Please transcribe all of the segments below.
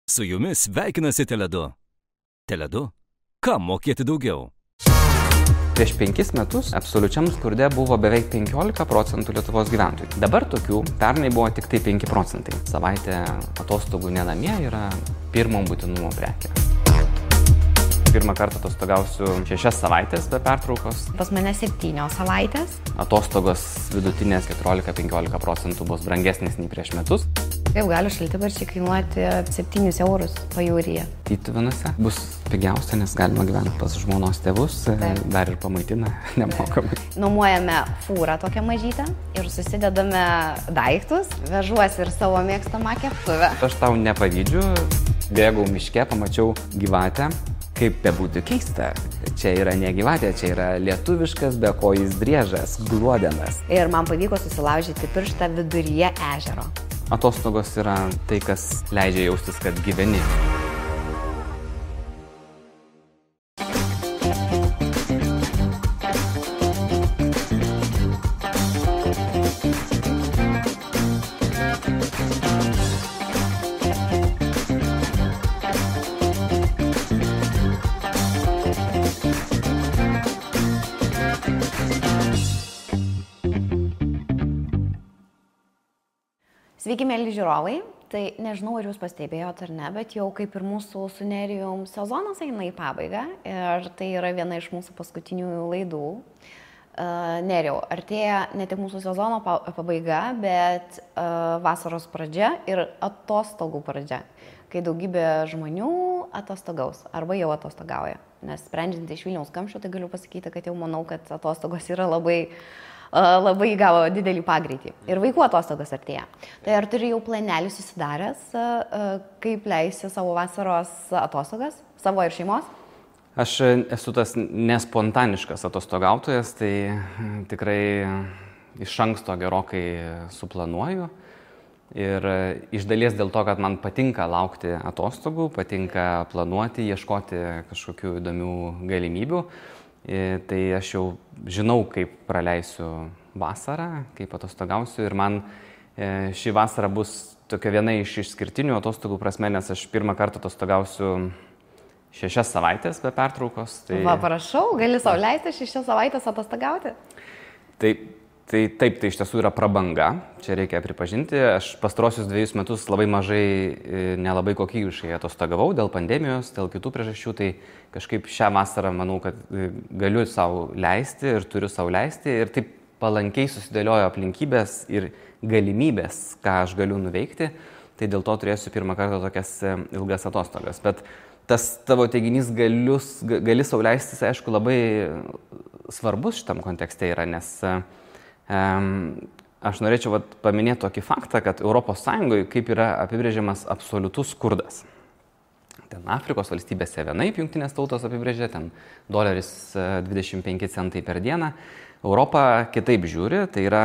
Su jumis sveikinasi Tele2. Tele2. Kam mokėti daugiau? Prieš 5 metus absoliučiam skurde buvo beveik 15% Lietuvos gyventojų. Dabar tokių pernai buvo tik tai 5%. Savaitė atostogų ne namie yra pirmo būtinumo prekė. Pirmą kartą atostogausiu 6 savaitės be pertraukos. Pas mane 7 savaitės. Atostogos vidutinės 14-15% bus brangesnės nei prieš metus. Kaip gali šaltibarščiai kainuoti 7 eurus pajūryje? Tytuvėnuose bus pigiausia, nes galima gyventi pas žmonos tėvus, dar ir pamaitina nemokamai. Nuomojame fūrą tokią mažytę ir susidedame daiktus, vežuosi ir savo mėgstamą keptuvę. Aš tau nepavydžiu, bėgau miške, pamačiau gyvatę. Kaip bebūtų keista, čia yra ne gyvatė, čia yra lietuviškas bekojis driežas, gluodenas. Ir man pavyko susilaužyti pirštą viduryje ežero. Atostogos yra tai, kas leidžia jaustis, kad gyveni. Sveiki, mėly žiūrovai. Tai nežinau, ar jūs pastebėjot ar ne, bet jau kaip ir mūsų su Nerijum sezonas eina į pabaigą ir tai yra viena iš mūsų paskutinių laidų. Nerijau, artėja ne tik mūsų sezono pabaiga, bet vasaros pradžia ir atostogų pradžia, kai daugybė žmonių atostogaus arba jau atostogauja. Nes sprendžiant iš Vilniaus kamščio, tai galiu pasakyti, kad jau manau, kad atostogos yra labai įgavo didelį pagreitį. Ir vaikų atostogos artėja. Tai ar turi jau planelį susidaręs, kaip leisi savo vasaros atostogas, savo ir šeimos? Aš esu tas nespontaniškas atostogautojas, tai tikrai iš anksto gerokai suplanuoju. Ir iš dalies dėl to, kad man patinka laukti atostogų, patinka planuoti, ieškoti kažkokių įdomių galimybių. Tai aš jau žinau, kaip praleisiu vasarą, kaip atostogausiu ir man ši vasara bus tokia viena iš išskirtinių atostogų prasme, nes aš pirmą kartą atostogausiu 6 savaitės be pertraukos. Tai... Va, prašau, gali sau leisti 6 savaitės atostogauti? Taip, tai iš tiesų yra prabanga, čia reikia pripažinti. Aš pastarosius 2 metus labai mažai, nelabai kokybiškai atostogavau dėl pandemijos, dėl kitų priežasčių, tai kažkaip šią vasarą manau, kad galiu sau leisti ir turiu sau leisti ir taip palankiai susidėliojo aplinkybės ir galimybės, ką aš galiu nuveikti, tai dėl to turėsiu pirmą kartą tokias ilgas atostogas. Bet tas tavo teiginys gali sau leisti, aišku, labai svarbus šitam kontekste yra, nes aš norėčiau paminėti tokį faktą, kad ES kaip yra apibrėžiamas absoliutus skurdas. Ten Afrikos valstybėse vienaip jungtinės tautos apibrėžia, ten $25 centai per dieną. Europa kitaip žiūri, tai yra,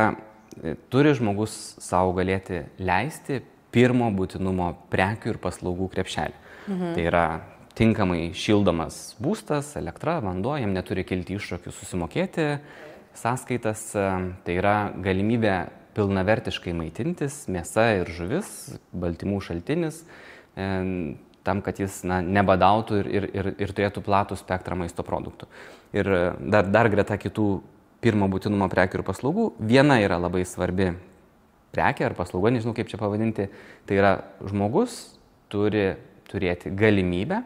turi žmogus savo galėti leisti pirmo būtinumo prekių ir paslaugų krepšelį. Tai yra tinkamai šildomas būstas, elektra, vanduo, jam neturi kilti iššūkių susimokėti sąskaitas, tai yra galimybė pilnavertiškai maitintis, mėsa ir žuvis, baltymų šaltinis, tam, kad jis nebadautų ir turėtų platų spektrą maisto produktų. Ir dar greta kitų pirmo būtinumo prekių ir paslaugų, viena yra labai svarbi prekė ar paslauga, nežinau kaip čia pavadinti, tai yra žmogus turi turėti galimybę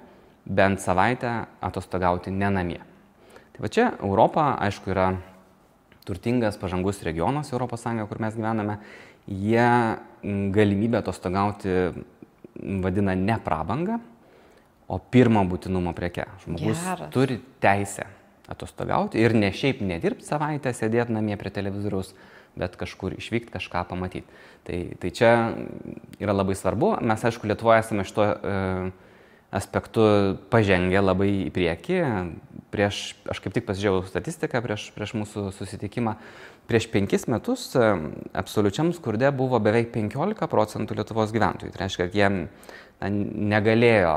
bent savaitę atostogauti ne namie. Tai va čia Europa, aišku, yra turtingas, pažangus regionas ES, kur mes gyvename, jie galimybę atostogauti vadina ne prabangą, o pirmo būtinumo preke. Žmogus turi teisę atostogauti ir ne šiaip nedirbti savaitę, sėdėti namie prie televizoriaus, bet kažkur išvykti, kažką pamatyti. Tai čia yra labai svarbu. Mes, aišku, Lietuvoje esame šito aspektu pažengę labai į priekį. Aš kaip tik pasižiūrėjau statistiką prieš mūsų susitikimą. Prieš 5 metus absoliučiam skurde buvo beveik 15% Lietuvos gyventojų. Tai reiškia, kad jie negalėjo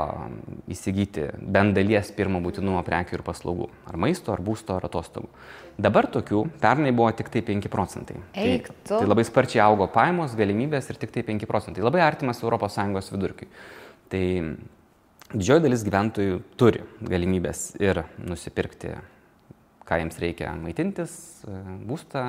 įsigyti bent dalies pirmo būtinumo prekių ir paslaugų. Ar maisto, ar būsto, ar atostogų. Dabar tokių pernai buvo tik tai 5%. Tai labai sparčiai augo pajamos, galimybės ir tik tai 5%. Labai artimas ES vidurkiui. Tai didžioji dalis gyventojų turi galimybės ir nusipirkti, ką jiems reikia maitintis, būstą,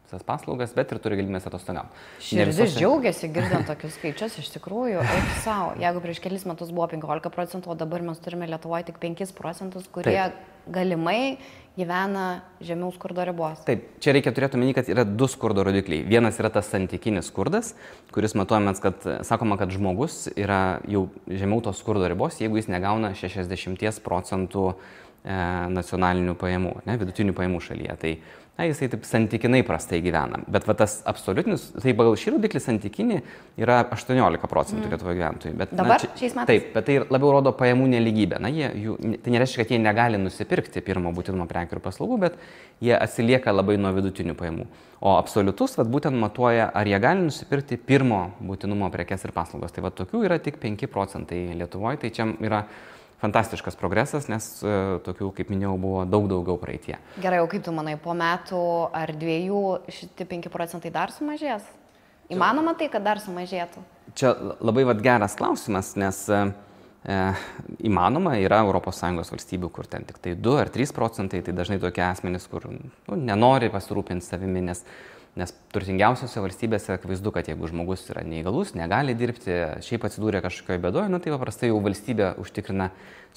visas paslaugas, bet ir turi galimybės atostogauti. Širdis džiaugiasi girdant tokius skaičius, iš tikrųjų, eik savo. Jeigu prieš kelis metus buvo 15%, o dabar mes turime Lietuvoje tik 5%, kurie galimai gyvena žemiau skurdo ribos. Taip, čia reikia turėti omeny, kad yra 2 skurdo rodikliai. Vienas yra tas santykinis skurdas, kuris matuojamas, kad sakoma, kad žmogus yra jau žemiau tos skurdo ribos, jeigu jis negauna 60% nacionalinių pajamų, vidutinių pajamų šalyje. Tai jisai taip santykinai prastai gyvena. Bet va tas absoliutinis, tai pagal šį rodiklį santykinį yra 18% Lietuvoje gyventojų. Bet, dabar šiais metais? Taip, bet tai labiau rodo pajamų neligybę. Tai nereiškia, kad jie negali nusipirkti pirmo būtinumo prekių ir paslaugų, bet jie atsilieka labai nuo vidutinių pajamų. O absoliutus būtent matuoja, ar jie gali nusipirkti pirmo būtinumo prekes ir paslaugas. Tai tokių yra tik 5% Lietuvoje. Tai čia yra fantastiškas progresas, nes tokių, kaip minėjau, buvo daug daugiau praeitie. Gerai, o kaip tu manai, po metų ar 2 šitie 5% dar sumažės? Įmanoma tai, kad dar sumažėtų? Čia labai geras klausimas, nes įmanoma, yra ES valstybių, kur ten tik tai 2 ar 3%, tai dažnai tokie asmenys, kur nenori pasirūpinti savimi, nes turtingiausiose valstybėse akivaizdu, kad jeigu žmogus yra neįgalus, negali dirbti, šiaip atsidūrė kažkokioje bėdoje, tai paprastai jau valstybė užtikrina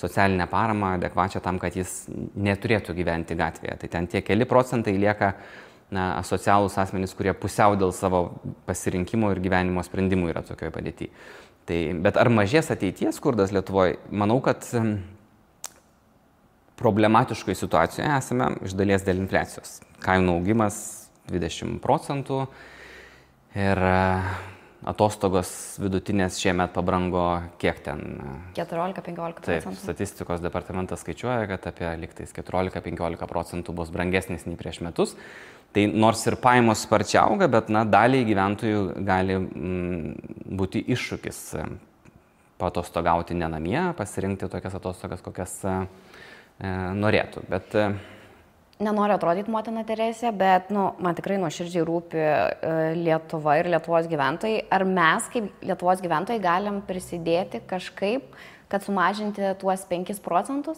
socialinę paramą adekvačią tam, kad jis neturėtų gyventi gatvėje. Tai ten tie keli procentai lieka asocialūs asmenys, kurie pusiau dėl savo pasirinkimo ir gyvenimo sprendimų yra tokioje padėtyje. Bet ar mažės ateities skurdas Lietuvoje? Manau, kad problematiškoje situacijoje esame iš dalies dėl infliacijos. Kainų augimas 20% ir atostogos vidutinės šiemet pabrango kiek ten? 14-15%. Taip, statistikos departamentas skaičiuoja, kad apie liktais 14-15% bus brangesnis nei prieš metus. Tai nors ir pajamos sparčiai auga, bet daliai gyventojų gali būti iššūkis paatostogauti ne namie, pasirinkti tokias atostogas, kokias norėtų. Bet nenoriu atrodyti motina Teresė, bet man tikrai nuoširdžiai rūpi Lietuva ir Lietuvos gyventojai. Ar mes kaip Lietuvos gyventojai galim prisidėti kažkaip, kad sumažinti tuos 5%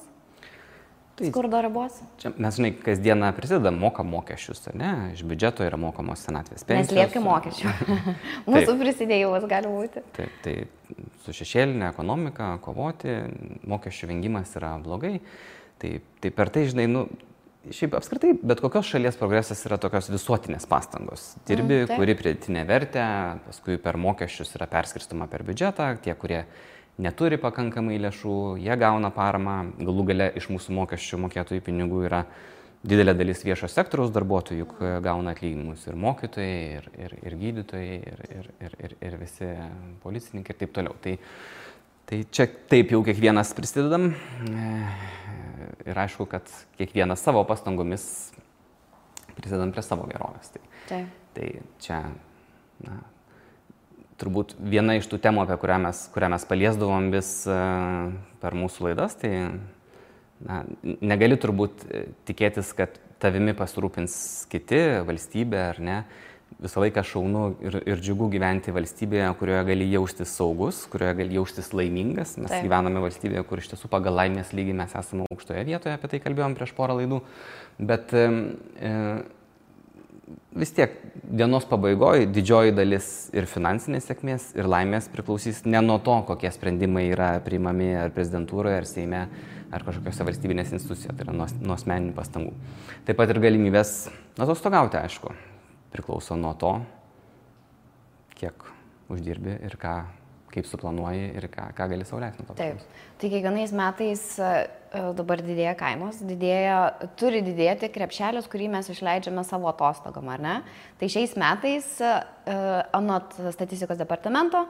skurdo ribos? Čia mes, kasdieną prisidedam, mokam mokesčius, ne? Iš biudžeto yra mokamos senatvės pensijos. Neslėpkim mokesčių. Mūsų prisidėjimas gali būti. Taip, tai su šešėlinė ekonomika kovoti, mokesčių vengimas yra blogai. Tai per tai, šiaip apskritai, bet kokios šalies progresas yra tokios visuotinės pastangos. Dirbi, kuri pridėtinę vertę, paskui per mokesčius yra perskirstoma per biudžetą, tie, kurie neturi pakankamai lėšų, jie gauna paramą, galų gale iš mūsų mokesčių mokėtojų pinigų yra didelė dalis viešo sektoriaus darbuotojų, juk gauna atlyginimus ir mokytojai, ir gydytojai, ir visi policininkai ir taip toliau. Tai čia taip jau kiekvienas prisidedam. Ir aišku, kad kiekvienas savo pastangomis prisidedam prie savo gerovės. Tai čia, turbūt viena iš tų temų, apie kurią mes paliesdavom vis per mūsų laidas, tai negali turbūt tikėtis, kad tavimi pasirūpins kiti, valstybė ar ne. Visą laiką šaunu ir džiugu gyventi valstybėje, kurioje gali jaustis saugus, kurioje gali jaustis laimingas. Mes gyvename valstybėje, kur iš tiesų pagal laimės lygį mes esame aukštoje vietoje, apie tai kalbėjom prieš porą laidų. Bet vis tiek dienos pabaigoje didžioji dalis ir finansinės sėkmės, ir laimės priklausys ne nuo to, kokie sprendimai yra priimami ar prezidentūroje, ar Seime, ar kažkokiose valstybinės institucijose, tai yra nuo asmeninių pastangų. Taip pat ir galimybės atostogauti, aišku, priklauso nuo to, kiek uždirbi ir kaip suplanuoji ir ką gali sau leisti nuo to. Taip. Tai kiekvienais metais dabar didėja kainos, turi didėti krepšelis, kurį mes išleidžiame savo atostogom, ar ne? Tai šiais metais, anot statistikos departamento,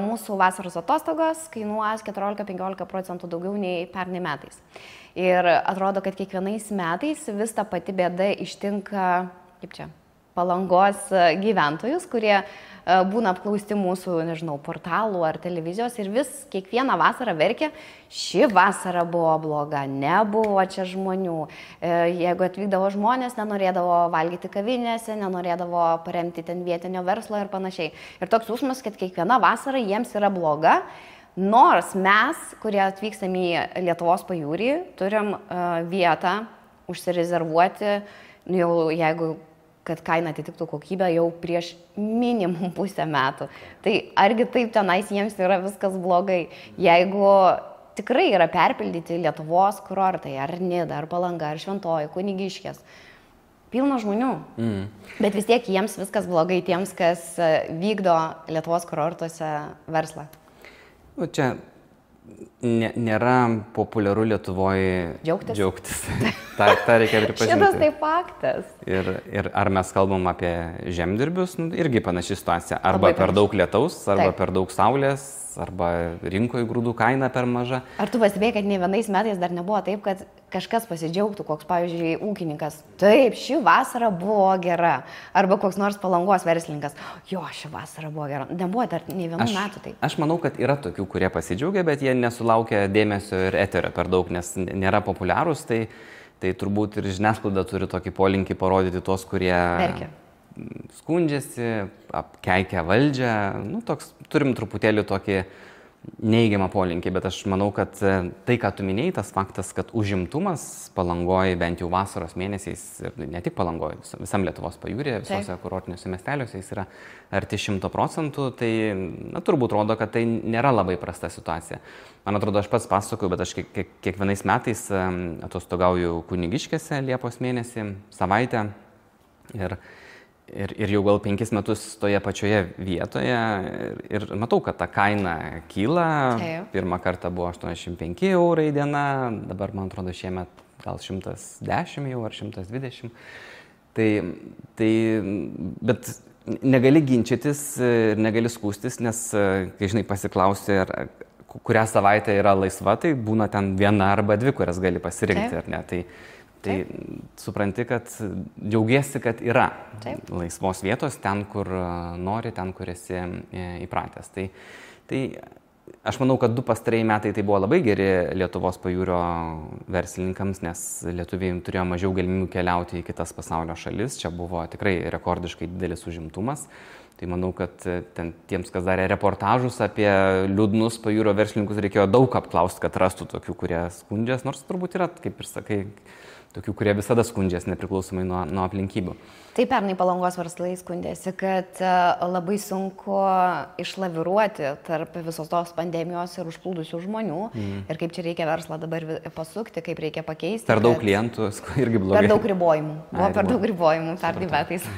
mūsų vasaros atostogos kainuos 14-15% daugiau nei pernai metais. Ir atrodo, kad kiekvienais metais vis ta pati bėda ištinka, Palangos gyventojus, kurie būna apklausti mūsų, portalų ar televizijos ir kiekvieną vasarą verkia, ši vasara buvo bloga, nebuvo čia žmonių. Jeigu atvykdavo žmonės, nenorėdavo valgyti kavinėse, nenorėdavo paremti ten vietinio verslo ir panašiai. Ir toks jausmas, kad kiekviena vasara jiems yra bloga, Nors mes, kurie atvykstam į Lietuvos pajūrį, turim vietą užsirezervuoti, jau jeigu kad kaina atitiktų kokybę jau prieš minimum pusę metų. Tai argi taip tenais jiems yra viskas blogai? Jeigu tikrai yra perpildyti Lietuvos kurortai, ar Nida, ar Palanga, ar Šventoji, Kunigiškės, pilna žmonių. Bet vis tiek jiems viskas blogai tiems, kas vykdo Lietuvos kurortuose verslą. Čia nėra populiaru Lietuvoje džiaugtis. Ta reikia pripažinti. Šitas tai faktas. Ir ar mes kalbam apie žemdirbius, irgi panaši situacija. Arba per daug lietaus, arba per daug saulės, arba rinkoje grūdų kaina per maža. Ar tu pastebėjai, kad ne vienais metais dar nebuvo taip, kad kažkas pasidžiaugtų, koks, pavyzdžiui, ūkininkas, taip, ši vasara buvo gera, arba koks nors Palangos verslininkas, jo, ši vasara buvo gera. Nebuvo dar ne vienų metų taip. Aš manau, kad yra tokių, kurie pasidžiaugia, bet jie nesulaukia dėmesio ir eterio per daug, nes nėra populiarūs, tai turbūt ir žiniasklaida turi tokį polinkį parodyti tos, kurie skundžiasi, apkeikia valdžią, turim truputėlį tokį neigiamą polinkį, bet aš manau, kad tai, ką tu minėjai, tas faktas, kad užimtumas Palangoje bent jau vasaros mėnesiais, ir ne tik Palangoje, visam Lietuvos pajūryje, visose kurortiniuose miesteliuose jis yra arti 100%, tai turbūt rodo, kad tai nėra labai prasta situacija. Man atrodo, aš pats pasakoju, bet aš kiekvienais metais atostogauju Kunigiškėse Liepos mėnesį, savaitę ir jau gal 5 metus toje pačioje vietoje ir matau, kad ta kaina kyla. Pirmą kartą buvo 85 eurai diena, dabar, man atrodo, šiemet gal 110 jau ar 120. Bet negali ginčytis ir negali skųstis, nes, kai žinai, pasiklausi, kurią savaitę yra laisva, tai būna ten viena arba dvi, kurias gali pasirinkti, ar ne. Tai supranti, kad džiaugiesi, kad yra laisvos vietos ten, kur nori, ten, kur esi įpratęs. Tai aš manau, kad 2 pastarieji metai tai buvo labai geri Lietuvos pajūrio verslininkams, nes lietuviai turėjo mažiau galimybių keliauti į kitas pasaulio šalis. Čia buvo tikrai rekordiškai didelis užimtumas. Tai manau, kad tiems, kas darė reportažus apie liūdnus pajūrio verslininkus, reikėjo daug apklausti, kad rastų tokių, kurie skundžias, nors turbūt yra, kaip ir sakai, tokių, kurie visada skundžias, nepriklausomai nuo aplinkybių. Tai pernai Palangos verslai skundėsi, kad labai sunku išlaviruoti tarp visos tos pandemijos ir užplūdusių žmonių. Ir kaip čia reikia verslą dabar pasukti, kaip reikia pakeisti. Per daug klientų irgi blogai. Per daug ribojimų. Buvo per daug ribojimų pernai metais.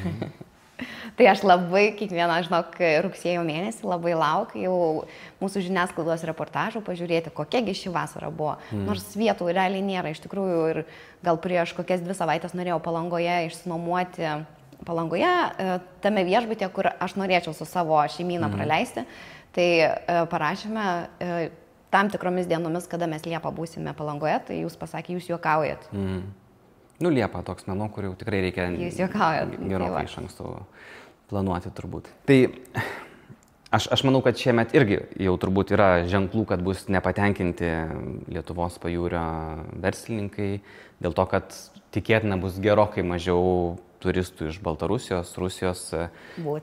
Tai aš labai kiekvieną, žinok, rugsėjo mėnesį labai laukiu jau mūsų žiniasklaidos reportažų pažiūrėti, kokiagi ši vasara buvo. Nors vietų realiai nėra, iš tikrųjų, ir gal prieš kokias 2 savaitės norėjau Palangoje išsinuomoti tame viešbutyje, kur aš norėčiau su savo šeimyną praleisti. Tai parašėme tam tikromis dienomis, kada mes Liepą būsime Palangoje, tai jūs pasakė, jūs juokaujat. Liepa toks menu, kur jau tikrai reikia gerokai iš anksto planuoti turbūt. Tai aš manau, kad šiemet irgi jau turbūt yra ženklų, kad bus nepatenkinti Lietuvos pajūrio verslininkai, dėl to, kad tikėtina bus gerokai mažiau turistų iš Baltarusijos, Rusijos.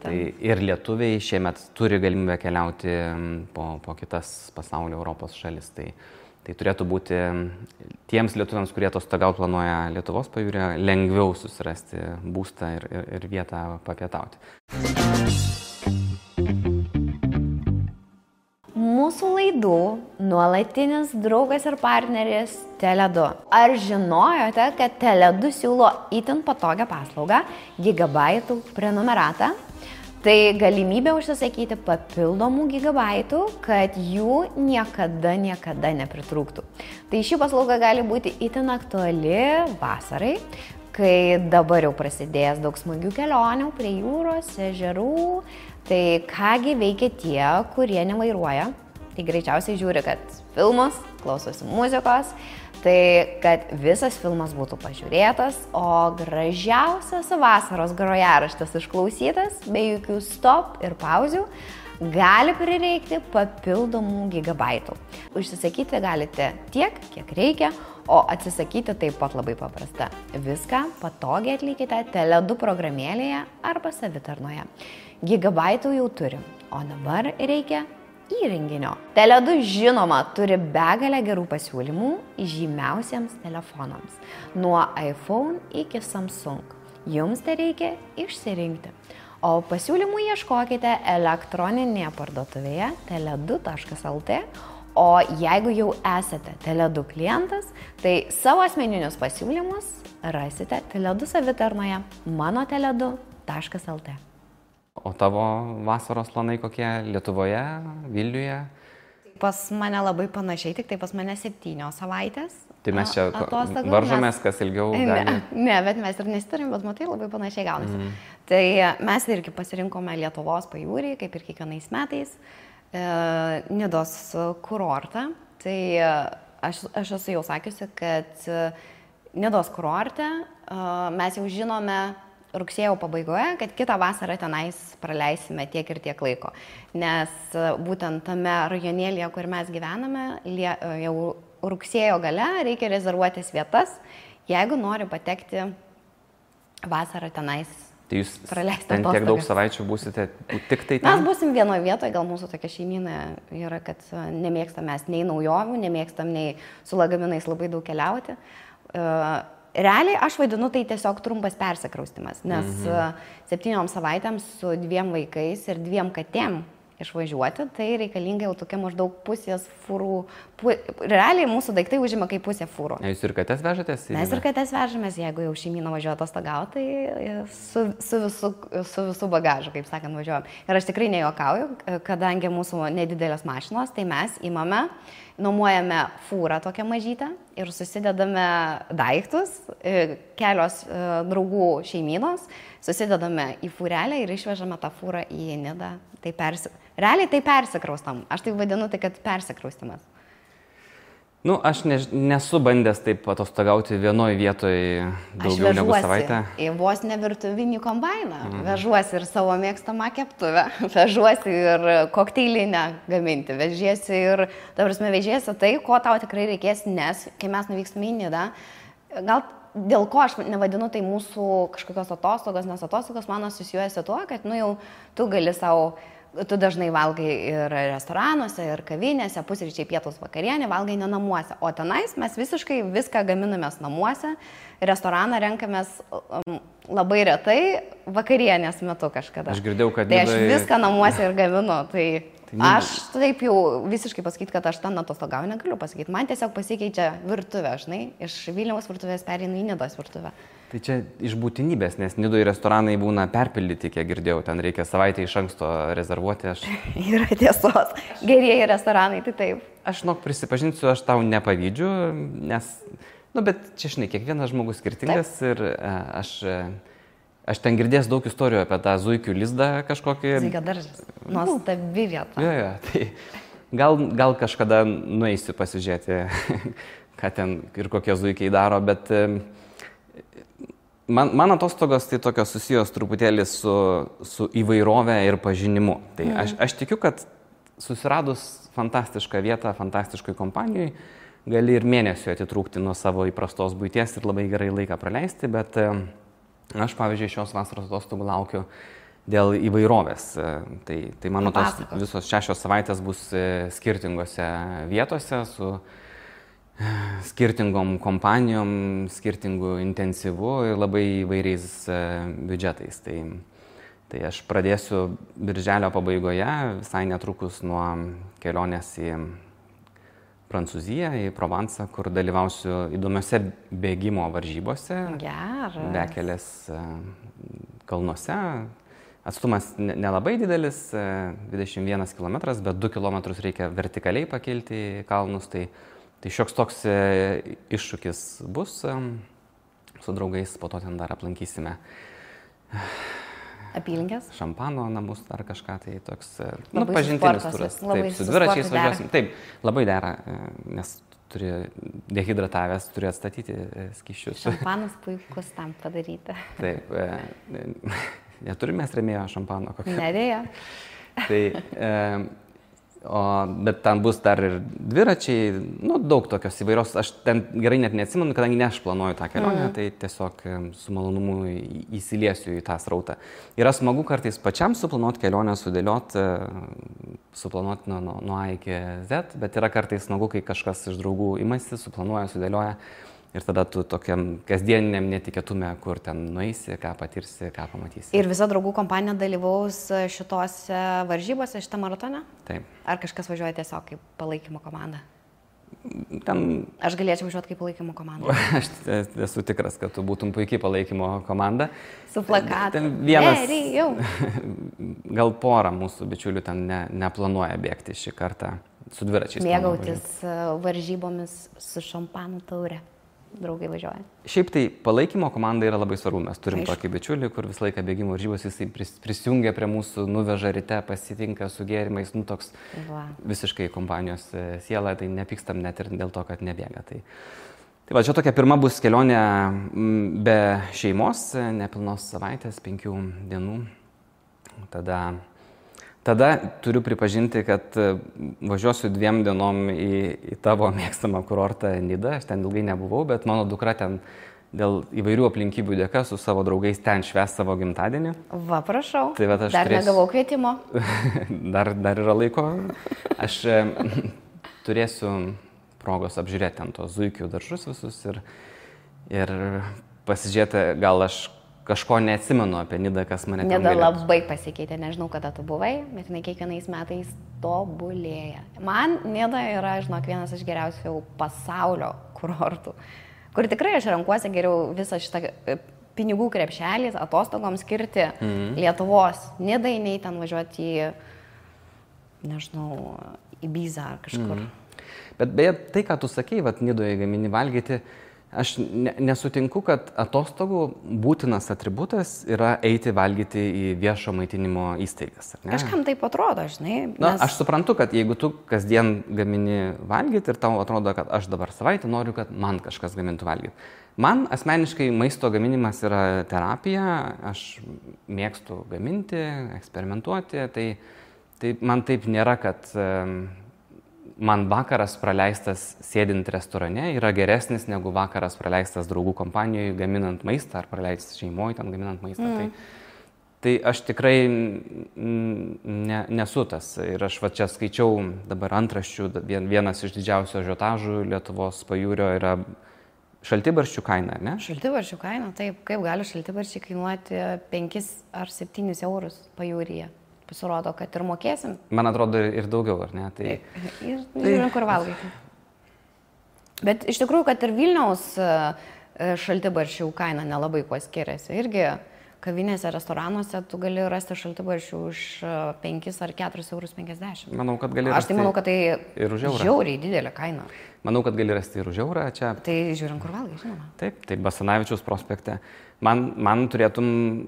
Tai ir lietuviai šiemet turi galimybę keliauti po kitas pasaulio Europos šalis. Tai turėtų būti tiems lietuviams, kurie atostogaut planuoja Lietuvos pajūryje, lengviau susirasti būstą ir vietą papietauti. Mūsų laidų nuolatinis draugas ir partneris Tele2. Ar žinojote, kad Tele2 siūlo itin patogią paslaugą gigabaitų prenumeratą? Tai galimybė užsisakyti papildomų gigabaitų, kad jų niekada nepritrūktų. Tai ši paslauga gali būti itin aktuali vasarai, kai dabar jau prasidės daug smagių kelionių prie jūros, ežerų. Tai kągi veikia tie, kurie nevairuoja. Tai greičiausiai žiūri, kad filmus, klausosi muzikos, tai kad visas filmas būtų pažiūrėtas, o gražiausias vasaros grojaraštis išklausytas, be jokių stop ir pauzių, gali prireikti papildomų gigabaitų. Užsisakyti galite tiek, kiek reikia, o atsisakyti taip pat labai paprasta. Viską patogiai atlikite Tele2 programėlėje arba savitarnoje. Gigabaitų jau turim, o dabar reikia įrenginio. Tele2 žinoma turi begalę gerų pasiūlymų žymiausiems telefonams. Nuo iPhone iki Samsung. Jums tai reikia išsirinkti. O pasiūlymų ieškokite elektroninėje parduotuvėje tele2.lt. O jeigu jau esate Tele2 klientas, tai savo asmeninius pasiūlymus rasite Tele2 savitarnoje mano-tele2.lt. O tavo vasaros planai kokie Lietuvoje, Vilniuje? Pas mane labai panašiai, tik tai pas mane 7 savaitės. Tai mes čia atostogų, varžomės, kas ilgiau gali. Ne, bet mes ir nesiturim, bet matai, labai panašiai gaunasi. Tai mes irgi pasirinkome Lietuvos pajūrį, kaip ir kiekvienais metais, Nidos kurortą. Tai aš esu jau sakiusi, kad Nidos kurorte mes jau žinome rugsėjo pabaigoje, kad kitą vasarą tenais praleisime tiek ir tiek laiko. Nes būtent tame rajonėlėje, kur mes gyvename, jau rugsėjo gale reikia rezervuotis vietas, jeigu nori patekti vasarą tenais. Tai jūs ten tiek daug savaičių būsite tik tai ten? Mes būsim vienoje vietoje, gal mūsų tokia šeimyna yra, kad nemėgstam mes nei naujovių, nemėgstam nei su lagaminais labai daug keliauti. Realiai aš vadinu tai tiesiog trumpas persikraustimas, nes 7 savaitėms su 2 vaikais ir 2 katėm išvažiuoti, tai reikalinga jau tokia maždaug pusės fūrų. Realiai mūsų daiktai užima kaip pusė fūrų. Jūs ir katės vežatės? Mes ir katės vežamės, jeigu jau šeimyna važiuoja atostogauti, tai su visu bagažu, kaip sakant, važiuojam. Ir aš tikrai nejuokauju, kadangi mūsų nedidelės mašinos, tai mes imame, nuomojame fūrą tokią mažytę ir susidedame daiktus, kelios draugų šeimynos, susidedame į fūrelę ir išvežame tą fūrą į Nidą. Realiai tai persikraustam. Aš tai vadinu, tai kad persikraustimas. Aš nesu bandęs taip atostogauti vienoje vietoje daugiau negu savaitę. Aš vežuosi į vos ne virtuvinį kombainą, vežuosi ir savo mėgstamą keptuvę, vežuosi ir kokteilinę gaminti, vežiesi ir, vežiesi tai, ko tau tikrai reikės, nes kai mes nuvykstame į Nidą, gal dėl ko aš nevadinu tai mūsų kažkokios atostogos, nes atostogos mano susijuojasi tuo, kad jau tu gali savo. Tu dažnai valgai ir restoranuose, ir kavinėse, pusryčiai, pietus, vakarienė, valgai ne namuose. O tenais mes visiškai viską gaminamės namuose, restoraną renkamės labai retai, vakarienės metu kažkada. Aš girdėjau, kad... Tai aš viską namuose ir gaminu. Tai aš taip jau visiškai pasakyti, kad aš ten atostogauju negaliu pasakyti. Man tiesiog pasikeičia virtuvė, žinai, iš Vilniaus virtuvės pereinu į Nidos virtuvę. Tai čia iš būtinybės, nes Nidoje restoranai būna perpildyti, kiek girdėjau, ten reikia savaitę iš anksto rezervuoti. Yra tiesos, gerieji restoranai, tai taip. Aš prisipažinsiu, aš tau nepavydžiu, nes, bet čia, žinai, kiekvienas žmogus skirtingas ir aš ten girdėjęs daug istorijų apie tą zuikių lizdą kažkokį. Zuikio daržas, nuostabi vieta. Jo, tai gal kažkada nueisiu pasižiūrėti, ką ten ir kokie zuikiai daro, bet... Man atostogos tai tokios susijos truputėlį su įvairove ir pažinimu. Tai aš tikiu, kad susiradus fantastišką vietą, fantastiškoj kompanijoj, gali ir mėnesio atitrūkti nuo savo įprastos buities ir labai gerai laiką praleisti, bet aš, pavyzdžiui, šios vasaros atostogų laukiu dėl įvairovės. Tai mano tos visos 6 savaitės bus skirtingose vietose su skirtingom kompanijom, skirtingų intensyvų ir labai įvairiais biudžetais. Tai aš pradėsiu birželio pabaigoje, visai netrukus nuo kelionės į Prancūziją, į Provencą, kur dalyvausiu įdomiose bėgimo varžybose. Bekelės kalnuose. Atstumas nelabai didelis, 21 km, bet 2 km reikia vertikaliai pakilti į kalnus. Tai šioks toks iššūkis bus, su draugais po to ten dar aplankysime apylinkės, šampano namus ar kažką, tai toks pažintinis turas. Taip, su dviračiais važiuosim. Taip, labai dera, nes turi dehidratavęs, turi atstatyti skysčius. Šampanas puikus tam padaryti. Taip, neturime rėmėjo šampano. Nedėja. Tai... Bet ten bus dar ir dviračiai, daug tokios įvairios, aš ten gerai net neatsimenu, kadangi ne aš planuoju tą kelionę, tai tiesiog su malonumu įsiliesiu į tą srautą. Yra smagu kartais pačiam suplanuoti kelionę, suplanuoti nuo A iki Z, bet yra kartais smagu, kai kažkas iš draugų imasi, suplanuoja, sudėlioja. Ir tada tu tokiam kasdieniniam netikėtume, kur ten nueisi, ką patirsi, ką pamatysi. Ir visa draugų kompanija dalyvaus šitose varžybose, šitą maratoną? Taip. Ar kažkas važiuoja tiesiog kaip palaikymo komanda? Aš galėčiau važiuoti kaip palaikymo komanda. Aš esu tikras, kad tu būtum puikiai palaikymo komanda. Su plakatu. Gal porą mūsų bičiulių ten neplanuoja bėgti šį kartą su dviračiais. Mėgautis varžybomis su šampanų taure. Draugai važiuoja. Šiaip tai palaikymo komanda yra labai svarbu. Mes turim tokį bičiulį, kur visą laiką bėgimo varžybos, jisai prisijungia prie mūsų, nuveža ryte, pasitinka su gėrimais, toks visiškai kompanijos siela, tai nepykstam net ir dėl to, kad nebėga. Tai va, čia tokia pirma bus kelionė be šeimos, nepilnos savaitės, 5 dienų. Tada turiu pripažinti, kad važiuosiu 2 dienom į tavo mėgstamą kurortą Nidą. Aš ten ilgai nebuvau, bet mano dukra ten dėl įvairių aplinkybių dėka su savo draugais ten švęs savo gimtadienį. Va, prašau. Tai va, dar negavau kvietimo. dar yra laiko. Aš turėsiu progos apžiūrėti ten tos zuikių daržus visus ir pasižiūrėti, gal aš kažko neatsimenu apie Nidą, kas mane ten galėtų. Nida labai pasikeitė, nežinau, kada tu buvai, bet jinai kiekvienais metais tobulėja. Man Nida yra, žinok, vienas iš geriausių pasaulio kurortų, kur tikrai aš renkuosi geriau visą šitą pinigų krepšelį atostogoms skirti Lietuvos Nidai, nei ten važiuoti į, nežinau, į Bizą ar kažkur. Bet beje, tai, ką tu sakei, Nidoje gamini valgyti, aš nesutinku, kad atostogų būtinas atributas yra eiti valgyti į viešo maitinimo įstaigas. Kažkam taip atrodo, žinai. Aš suprantu, kad jeigu tu kasdien gamini valgyti ir tau atrodo, kad aš dabar savaitę noriu, kad man kažkas gamintų valgyti. Man asmeniškai maisto gaminimas yra terapija, aš mėgstu gaminti, eksperimentuoti, tai man taip nėra, kad man vakaras praleistas sėdint restorane yra geresnis negu vakaras praleistas draugų kompanijoje gaminant maistą ar praleistas šeimoje ten gaminant maistą. Tai aš tikrai nesu tas. Ir aš čia skaičiau dabar antraščių, vienas iš didžiausių ažiotažų Lietuvos pajūrio yra šaltibarščių kaina, ne? Šaltibarščių kaina, taip. Kaip gali šaltibarščiai kainuoti 5 ar 7 eurus pajūryje? Pasirodo, kad ir mokėsim. Man atrodo ir daugiau, ar ne? Ir žiūrim, kur valgyti. Bet iš tikrųjų, kad ir Vilniaus šaltibarščių kaina nelabai kuo skiriasi. Irgi kavinėse, restoranuose tu gali rasti šaltibarščių už 5 ar 4,50 eurus. Manau, kad gali rasti. Aš tai manau, kad tai žiauriai didelė kaina. Manau, kad gali rasti ir už eurą čia. Tai žiūrim, kur valgai, žinoma. Taip, tai Basanavičiaus prospekte. Man turėtum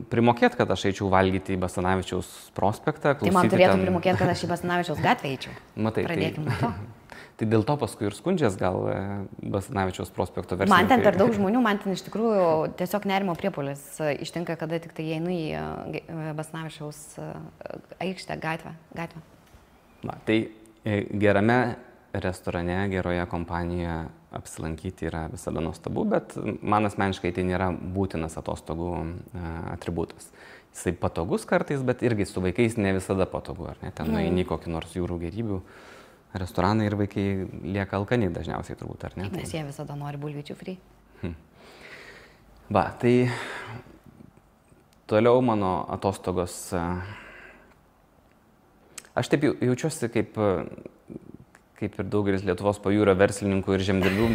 primokėti, kad aš eičiau valgyti į Basanavičiaus prospektą. Tai man turėtum primokėti, kad aš į Basanavičiaus gatvę eičiau. Matai, pradėkime to. Tai dėl to paskui ir skundžias gal Basanavičiaus prospekto versiją. Man ten per daug žmonių, man ten iš tikrųjų tiesiog nerimo priepuolis ištinka, kada tik tai einu į Basanavičiaus aikštę, gatvę. Na, tai gerame restorane, geroje kompanijoje apsilankyti yra visada nuostabu, bet man asmeniškai tai nėra būtinas atostogų atributas. Jisai patogus kartais, bet irgi su vaikais ne visada patogu, ar ne? Ten nueini kokį nors jūrų gėrybių restoraną ir vaikai lieka alkani dažniausiai turbūt, ar ne? Nes jie visada nori bulvyčių free. Va, tai toliau mano atostogos. Aš taip jaučiuosi kaip ir daugelis Lietuvos pajūrio verslininkų ir žemdirbių.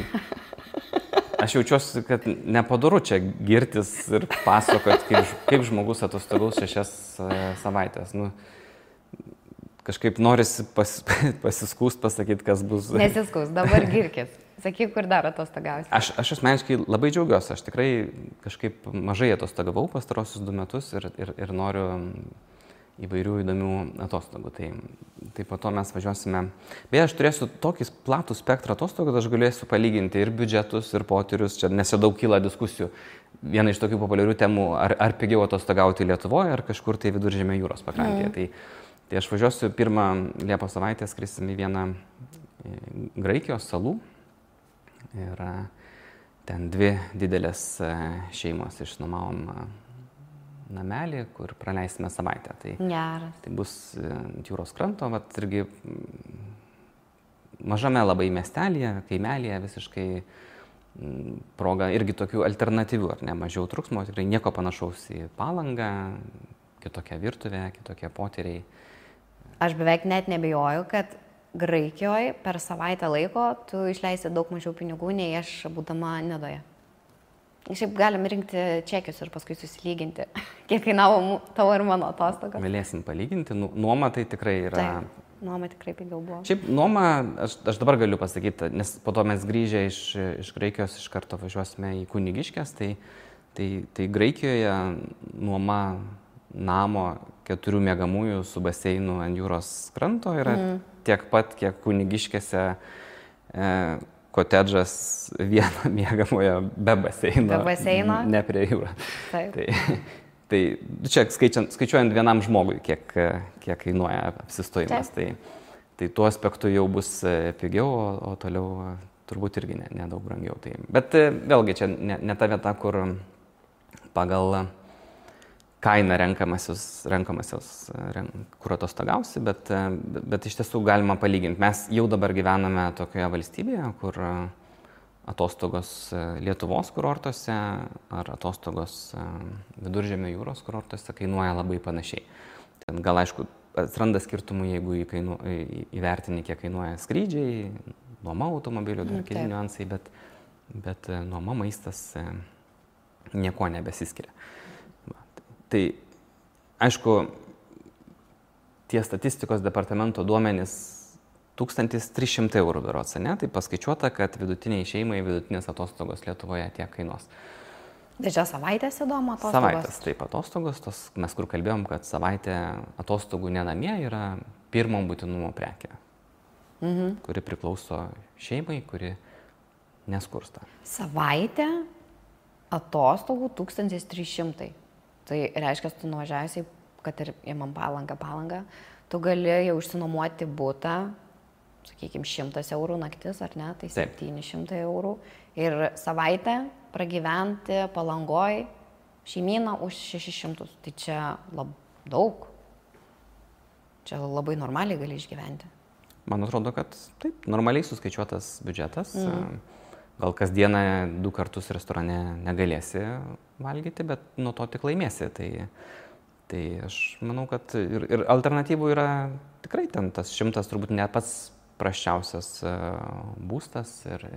Aš jaučiuosi, kad nepadoru čia girtis ir pasakot, kaip žmogus atostogaus 6 savaitės. Kažkaip norisi pasiskūst, pasakyti, kas bus. Nesiskūst, dabar girkis. Sakyk, kur dar atostogausi. Aš asmeniškai labai džiaugiuosi. Aš tikrai kažkaip mažai atostogavau pastarosius 2 metus ir noriu įvairių įdomių atostogų. Tai po to mes važiuosime. Beje, aš turėsiu tokį platų spektrą atostogų, kad aš galėsiu palyginti ir biudžetus, ir potyrius. Čia nes jau daug kyla diskusijų. Viena iš tokių populiarių temų, ar pigiau atostogauti Lietuvoje, ar kažkur tai Viduržemio jūros pakrantėje. Tai Tai aš važiuosiu pirmą Liepos savaitę, skrisim į vieną Graikijos salų. Ir ten 2 didelės šeimos išnuomavom namelį, kur praleisime savaitę. Tai bus ant jūros kranto, vat irgi mažame labai miestelėje, kaimelėje visiškai proga irgi tokių alternatyvių, ar ne, mažiau truksmo, tikrai nieko panašaus į Palangą, kitokia virtuvė, kitokie potyriai. Aš beveik net nebijoju, kad Graikijoje per savaitę laiko tu išleisi daug mažiau pinigų, nei aš būdama Nidoje. Šiaip galim rinkti čekius ir paskui susilyginti, kiek kainavo tavo ir mano atostogos. Galėsim palyginti, nuoma tai tikrai yra... Taip, nuoma tikrai pigiau buvo. Šiaip nuoma, aš dabar galiu pasakyti, nes po to mes grįžę iš Graikijos iš karto važiuosime į Kunigiškes, tai Graikijoje nuoma namo 4 miegamųjų su baseinu ant jūros kranto yra tiek pat, kiek Kunigiškėse kotedžas vieno miegamojo be baseino, ne prie jūros. Tai čia skaičiuojant vienam žmogui, kiek kainuoja apsistojimas. Tai tuo aspektu jau bus pigiau, o toliau turbūt irgi nedaug brangiau. Bet vėlgi čia ne ta vieta, kur pagal kainą renkamasios, kur atostogausi, bet iš tiesų galima palyginti. Mes jau dabar gyvename tokioje valstybėje, kur atostogos Lietuvos kurortuose ar atostogos Viduržemio jūros kurortuose kainuoja labai panašiai. Ten gal aišku atsiranda skirtumų, jeigu įvertini, kiek kainuoja skrydžiai, nuoma automobilių, dar keli niuansai, bet nuoma maistas nieko nebesiskiria. Tai aišku, tie statistikos departamento duomenys 1300 eurų berods, ne? Tai paskaičiuota, kad vidutiniai šeimai vidutinės atostogos Lietuvoje tiek kainuos. Tai čia savaitės įdomu atostogos? Savaitės, taip, atostogos, mes kur kalbėjom, kad savaitė atostogų nenamie yra pirmo būtinumo prekė, kuri priklauso šeimai, kuri neskursta. Savaitė atostogų 1300. Tai reiškia, tu nuvažiavęs, kad ir imam Palangą, tu gali jau išsinuomoti butą, sakykime, 100 eurų naktis, ar ne, tai 700 eurų. Ir savaitę pragyventi Palangoj šeimyną už 600. Tai čia daug. Čia labai normaliai gali išgyventi. Man atrodo, kad taip, normaliai suskaičiuotas biudžetas. Gal kasdieną 2 kartus restorane negalėsi valgyti, bet nuo to tik laimėsi. Tai aš manau, kad ir alternatyvų yra tikrai ten tas 100 turbūt ne pats prasčiausias būstas ir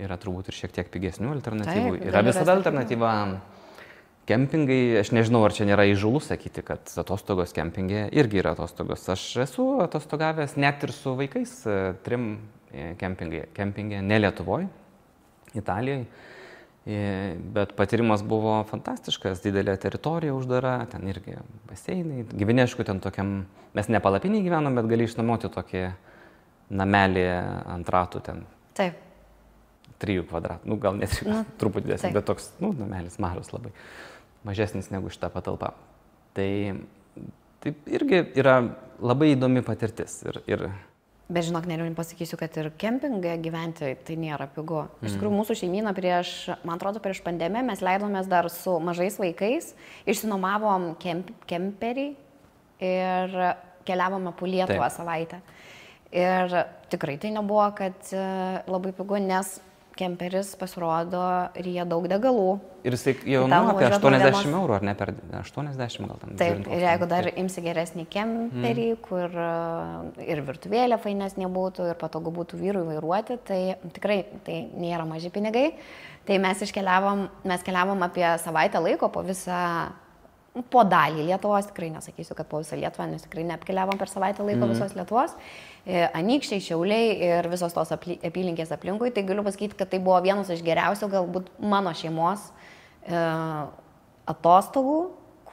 yra turbūt ir šiek tiek pigesnių alternatyvų. Taip, yra visada alternatyva kempingai. Aš nežinau, ar čia nėra įžūlu sakyti, kad atostogos kempinge irgi yra atostogos. Aš esu atostogavęs net ir su vaikais 3 kempinge, ne Lietuvoje, Italijoje, bet patyrimas buvo fantastiškas, didelė teritorija uždara, ten irgi baseinai, gyveni, aišku, ten tokiam, mes ne palapinį gyvenom, bet gali išnuomoti tokį namelį ant ratų ten. Taip. 3 kvadratų, gal net truputį didesnis, bet toks, namelis mažas labai, mažesnis negu šita patalpa. Tai irgi yra labai įdomi patirtis ir Bet žinok, neriu pasakysiu, kad ir kempinge gyventi tai nėra pigu. Iš tikrųjų, mūsų šeimyna man atrodo, prieš pandemiją mes leidomės dar su mažais vaikais, išsinuomavom kemperį ir keliavome po Lietuvą savaitę. Ir tikrai tai nebuvo, kad labai pigu, nes kemperis pasirodo ryja daug degalų. Ir jisai jau apie 80 eurų, ar ne per 80 gal tam. Taip, ir jeigu dar imsi geresnį kemperį, kur ir virtuvėlė fainesnė būtų, ir patogu būtų vyrui vairuoti, tai tikrai tai nėra maži pinigai. Tai mes keliavom apie savaitę laiko po dalį Lietuvos, tikrai nesakysiu, kad po visą Lietuvą, nes tikrai neapkeliavom per savaitę laiko visos Lietuvos. Anykščiai, Šiauliai ir visos tos apylinkės aplinkui. Tai galiu pasakyti, kad tai buvo vienas iš geriausių galbūt mano šeimos atostogų,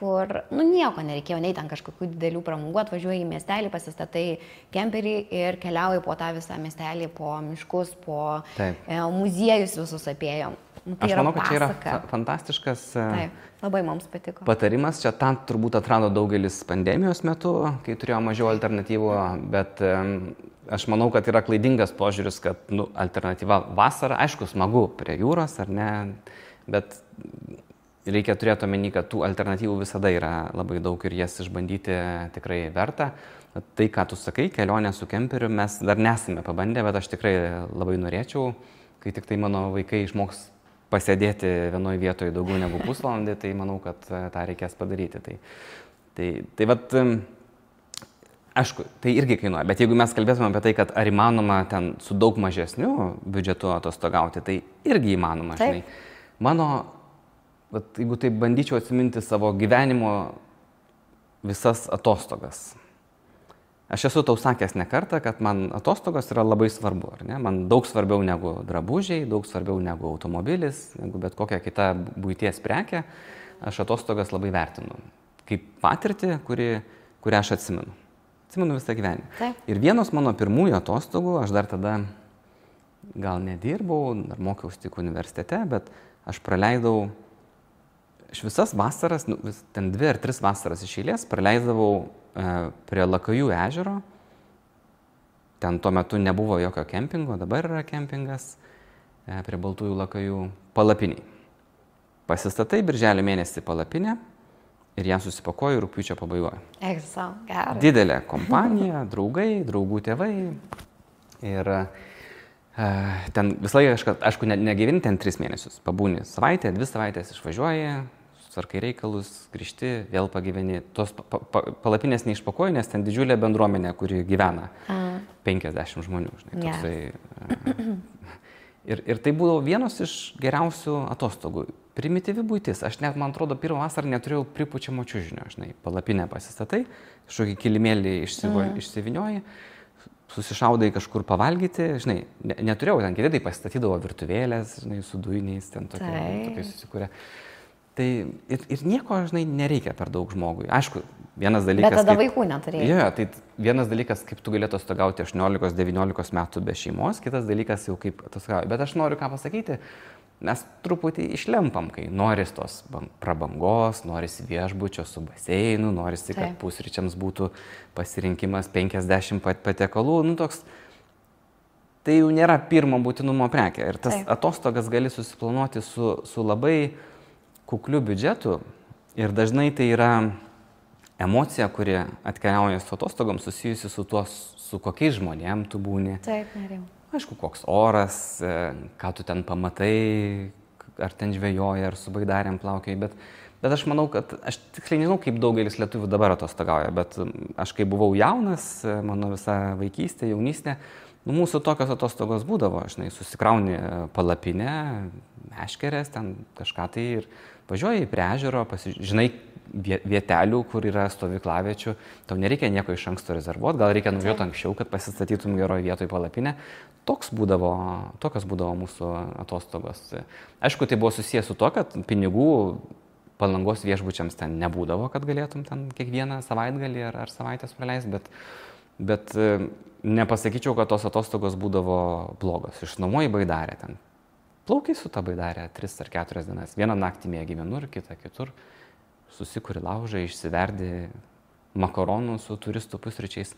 kur, nieko nereikėjo, nei ten kažkokių didelių pramogų, atvažiuoji į miestelį, pasistatai kemperį ir keliauji po tą visą miestelį, po miškus, po muziejus visus apėjom. Aš manau, kad čia yra fantastiškas labai mums patiko. Patarimas. Čia tam turbūt atrado daugelis pandemijos metu, kai turėjo mažiau alternatyvų, bet aš manau, kad yra klaidingas požiūris, kad alternatyva vasara, aišku, smagu prie jūros ar ne, bet reikia turėti omeny, kad tų alternatyvų visada yra labai daug ir jas išbandyti tikrai verta. Tai, ką tu sakai, kelionė su kemperiu, mes dar nesame pabandę, bet aš tikrai labai norėčiau, kai tik tai mano vaikai išmoks pasėdėti vienoje vietoje daugiau negu pusvalandį, tai manau, kad tą reikės padaryti. Tai vat, aišku, tai irgi kainuoja, bet jeigu mes kalbėtume apie tai, kad ar įmanoma ten su daug mažesniu biudžetu atostogauti, tai irgi įmanoma, žinai. Bet jeigu taip bandyčiau atsiminti savo gyvenimo visas atostogas. Aš esu tau sakęs ne kartą, kad man atostogos yra labai svarbu, ar ne? Man daug svarbiau negu drabužiai, daug svarbiau negu automobilis, negu bet kokia kita buities prekė. Aš atostogas labai vertinu. Kaip patirtį, kurią aš atsimenu. Atsimenu visą gyvenimą. Taip. Ir vienos mano pirmųjų atostogų, aš dar tada gal nedirbau, dar mokiausi tik universitete, bet aš praleidau visas vasaras, ten 2 ar 3 vasaras iš eilės, praleisdavau prie Lakajų ežero. Ten tuo metu nebuvo jokio kempingo, dabar yra kempingas prie Baltųjų Lakajų palapiniai. Pasistatai birželio mėnesį palapinę ir ją susipakoju rugpjūčio pabaigoje. Didelė kompanija, draugai, draugų tėvai. Ir ten visą laiką, aišku, negyveni ten 3 mėnesius. Pabūni savaitę, 2 savaitės išvažiuoji, susarkai reikalus, grįžti, vėl pagyveni. Tos palapinės neišpakoji, nes ten didžiulė bendruomenė, kuri gyvena. 50 žmonių, žinai. Toksai. Ir tai buvo vienos iš geriausių atostogų. Primityvi buitis. Aš net, man atrodo, pirmą vasarą neturėjau pripučiamo čiužinio, žinai. Palapinę pasistatai, kažkokį kilimėlį išsivinioji, susišaudai kažkur pavalgyti, žinai. Neturėjau, ten kiti tai pasistatydavo virtuvėlės, žinai, su dujiniais, ten tokie susikūrė. Tai ir nieko, žinai, nereikia per daug žmogui. Aišku, vienas dalykas... Bet tada vaikų neturėjai. Jo, tai vienas dalykas, kaip tu galėtų atostogauti 18-19 metų be šeimos, kitas dalykas jau kaip atostogauti. Bet aš noriu ką pasakyti, mes truputį išlempam, kai noris tos prabangos, noris viešbučio su baseinu, norisi, kad pusryčiams būtų pasirinkimas 50 patiekalų, toks... Tai jau nėra pirmo būtinumo prekė. Ir tas atostogas gali susiplanuoti su labai kukliu biudžetu ir dažnai tai yra emocija, kuri atkeliauja su atostogom susijusi su tuo, su kokiais žmonėm tu būni. Taip, norėjau. Aišku, koks oras, ką tu ten pamatai, ar ten žvejoji, ar su baidarėm plaukiai, bet aš manau, kad aš tiksliai nežinau, kaip daugelis lietuvių dabar atostogauja, bet aš kai buvau jaunas, mano visa vaikystė, jaunystė, mūsų tokios atostogos būdavo, žinai, susikrauni palapinę, meškerės, ten kažką tai ir važiuoji prie ežero, žinai vietelių, kur yra stovyklaviečių, tau nereikia nieko iš anksto rezervuoti, gal reikia nuvažiuoti anksčiau, kad pasistatytum geroje vietoje palapinę. Tokios būdavo mūsų atostogos. Aišku, tai buvo susijęs su to, kad pinigų Palangos viešbučiams ten nebūdavo, kad galėtum ten kiekvieną savaitgalį ar savaitės praleisti, bet nepasakyčiau, kad tos atostogos būdavo blogos. Išnuomoji baidarę ten. Plaukiai su ta baidarė 3 ar 4 dienas. Vieną naktį mėgi vienur, kitą kitur. Susikuri laužą, išsiverdi makaronų su turistų pusryčiais.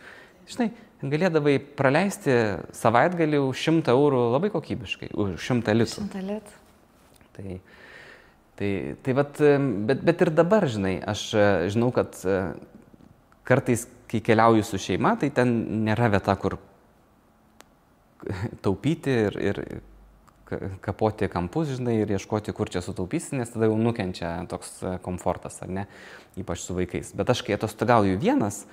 Žinai, galėdavai praleisti savaitgalį už 100 eurų labai kokybiškai, už 100 litrų. 100 litrų. Tai vat, bet ir dabar, žinai, aš žinau, kad kartais, kai keliauju su šeima, tai ten nėra vieta, kur taupyti ir kapoti kampus, žinai, ir ieškoti, kur čia sutaupysi, nes tada jau nukenčia toks komfortas, ar ne, ypač su vaikais. Bet aš, kai atostogauju vienas,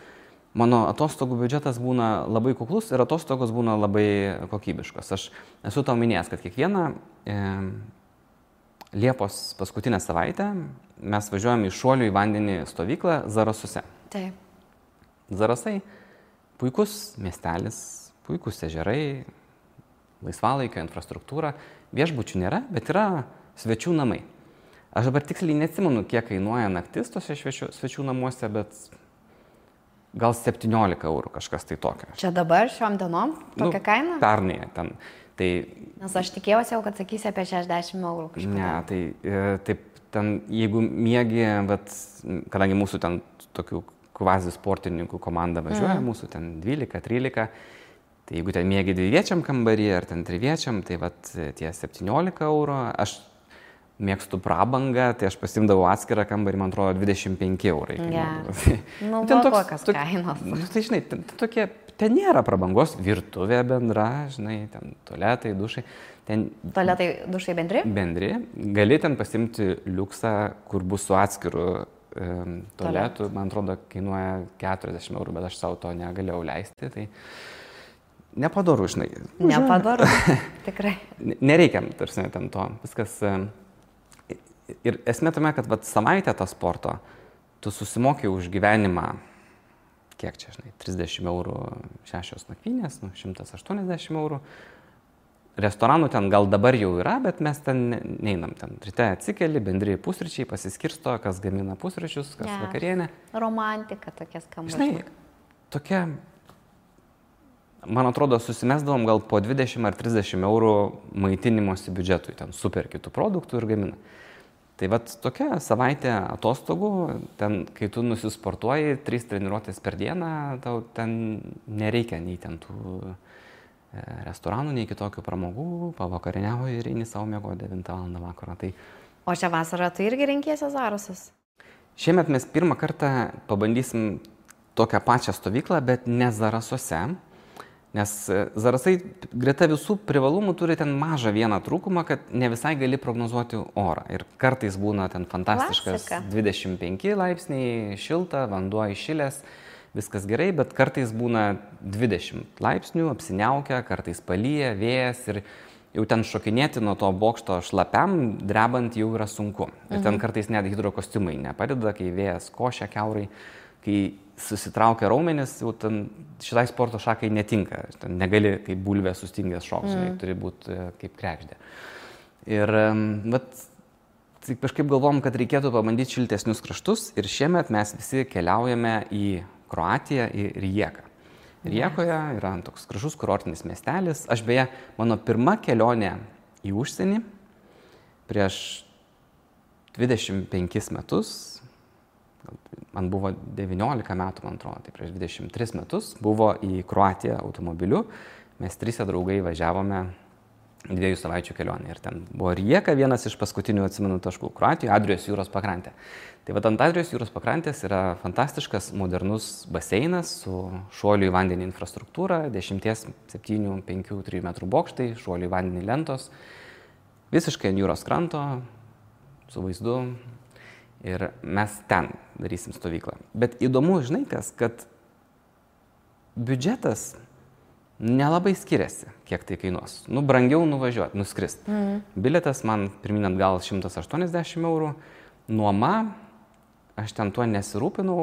mano atostogų biudžetas būna labai kuklus ir atostogos būna labai kokybiškos. Aš esu tau minėjęs, kad kiekvieną Liepos paskutinę savaitę mes važiuojam į šuolių į vandenį stovyklą Zarasuose. Taip. Zarasai puikus miestelis, puikus ežerai, laisvalaikio infrastruktūra, viešbučių nėra, bet yra svečių namai. Aš dabar tiksliai neatsimenu, kiek kainuoja naktis tose svečių namuose, bet gal 17 eurų kažkas tai tokio. Čia dabar šiom dienom tokia kaina? Pernai ten. Tai, nes aš tikėjausi jau, kad sakysi apie 60 eurų kažką. Ne, tai taip, ten, jeigu miegi, bet kadangi mūsų ten tokių kvazi sportininkų komanda važiuoja, mūsų ten 12-13, tai jeigu ten miegi dviviečiam kambarį ar ten triviečiam, tai vat tie 17 eurų, aš mėgstu prabangą, tai aš pasimdavau atskirą kambarį, man atrodo, 25 eurai. Nu, buvo kokios kainos. Tai žinai, ten nėra prabangos, virtuvė bendra, žinai, ten tualetai, dušai. Tualetai, dušai bendri? Bendri. Gali ten pasimti liuksą, kur bus su atskiru tualetu, man atrodo, kainuoja 40 eurų, bet aš savo to negalėjau leisti. Tai nepadaru, žinai. Nepadaru, tikrai. Nereikia, tarsi, ten to. Viskas. Ir esmė tame, kad savaitę tą sporto tu susimoki už gyvenimą, kiek čia, žinai, 30 eurų 6 nakvynės, 180 eurų. Restoranų ten gal dabar jau yra, bet mes ten neinam. Ten ryte atsikeli, bendri pusryčiai, pasiskirsto, kas gamina pusryčius, kas vakarienę. Romantika tokia skamba. Žinai, tokia, man atrodo, susimesdavom gal po 20 ar 30 eurų maitinimosi biudžetui, ten super kitų produktų ir gamina. Tai vat tokia savaitė atostogų, ten, kai tu nusisportuoji 3 treniruotės per dieną, tau ten nereikia nei ten tų restoranų, nei kitokių pramogų, pavakarieniauji ir eini savo miego 9 val. Vakaro. Tai... O šią vasarą tu irgi renkiesi Zarasus? Šiemet mes pirmą kartą pabandysim tokią pačią stovyklą, bet ne Zarasuose. Nes Zarasai greta visų privalumų turi ten mažą vieną trūkumą, kad ne visai gali prognozuoti orą. Ir kartais būna ten fantastiškas 25 laipsniai, šilta, vanduo įšilęs, viskas gerai, bet kartais būna 20 laipsnių, apsiniaukia, kartais palyja, vėjas ir jau ten šokinėti nuo to bokšto šlapiam, drebant jau yra sunku. Ir ten kartais net hidrokostiumai nepadeda, kai vėjas košia kiaurai, kai susitraukia raumenis, jau ten šitai sporto šakai netinka. Ten negali kaip bulvė sustingęs šoks, turi būti kaip kregždė. Ir tai kažkaip galvom, kad reikėtų pabandyti šiltesnius kraštus ir šiemet mes visi keliaujame į Kroatiją, į Rijeką. Rijekoje yra toks gražus kurortinis miestelis. Aš beje, mano pirma kelionė į užsienį prieš 25 metus, man buvo 19 metų, man atrodo, tai prieš 23 metus buvo į Kroatiją automobiliu. Mes 3 draugai važiavome 2 savaičių kelionę ir ten buvo Rijeka, vienas iš paskutinių atsimenu taškų Kroatijoje, Adrijos jūros pakrantė. Tai vat ant Adrijos jūros pakrantės yra fantastiškas modernus baseinas su šuolių į vandenį infrastruktūra, 10, 7, 5, 3 metrų bokštai, šuolių į vandenį lentos, visiškai ant jūros kranto, su vaizdu. Ir mes ten darysim stovyklą. Bet įdomu, žinai kas, kad biudžetas nelabai skiriasi, kiek tai kainuos. Brangiau nuvažiuoti, nuskrist. Bilietas man pirmin atgal 180 eurų. Nuoma, aš ten tuo nesirūpinau,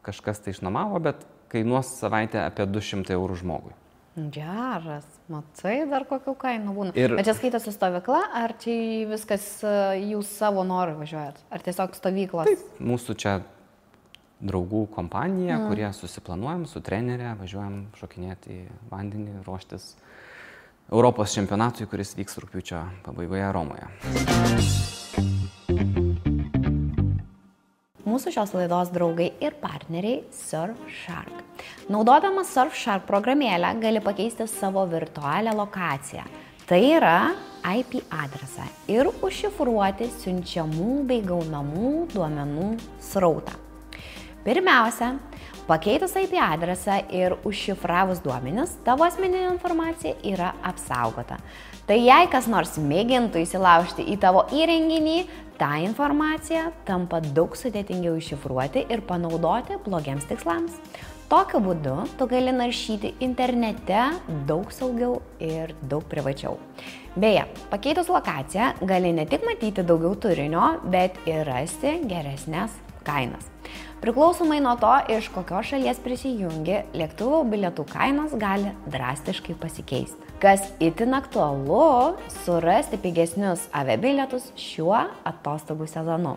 kažkas tai išnuomavo, bet kainuos savaitę apie 200 eurų žmogui. Geras, matai, dar kokių kainų būna. Bet čia skaitosi stovykla, ar čia viskas jūs savo norų važiuojat? Ar tiesiog stovyklos? Taip, mūsų čia draugų kompanija, kurie susiplanuojam su trenerė, važiuojam šokinėti į vandenį, ruoštis Europos čempionatui, kuris vyks rugpjūčio pabaigoje Romoje. Mūsų šios laidos draugai ir partneriai Surfshark. Naudodamas Surfshark programėlę gali pakeisti savo virtualią lokaciją. Tai yra IP adresą ir užšifruoti siunčiamų bei gaunamų duomenų srautą. Pirmiausia, pakeitus IP adresą ir užšifravus duomenis, tavo asmeninė informacija yra apsaugota. Tai jei kas nors mėgintų įsilaužti į tavo įrenginį, ta informacija tampa daug sudėtingiau iššifruoti ir panaudoti blogiems tikslams. Tokiu būdu tu gali naršyti internete daug saugiau ir daug privačiau. Beje, pakeitus lokaciją gali ne tik matyti daugiau turinio, bet ir rasti geresnės kainas. Priklausomai nuo to, iš kokios šalies prisijungi, lėktuvo bilietų kainos gali drastiškai pasikeisti. Kas itin aktualu, surasti pigesnius aviabilietus šiuo atostogų sezonu.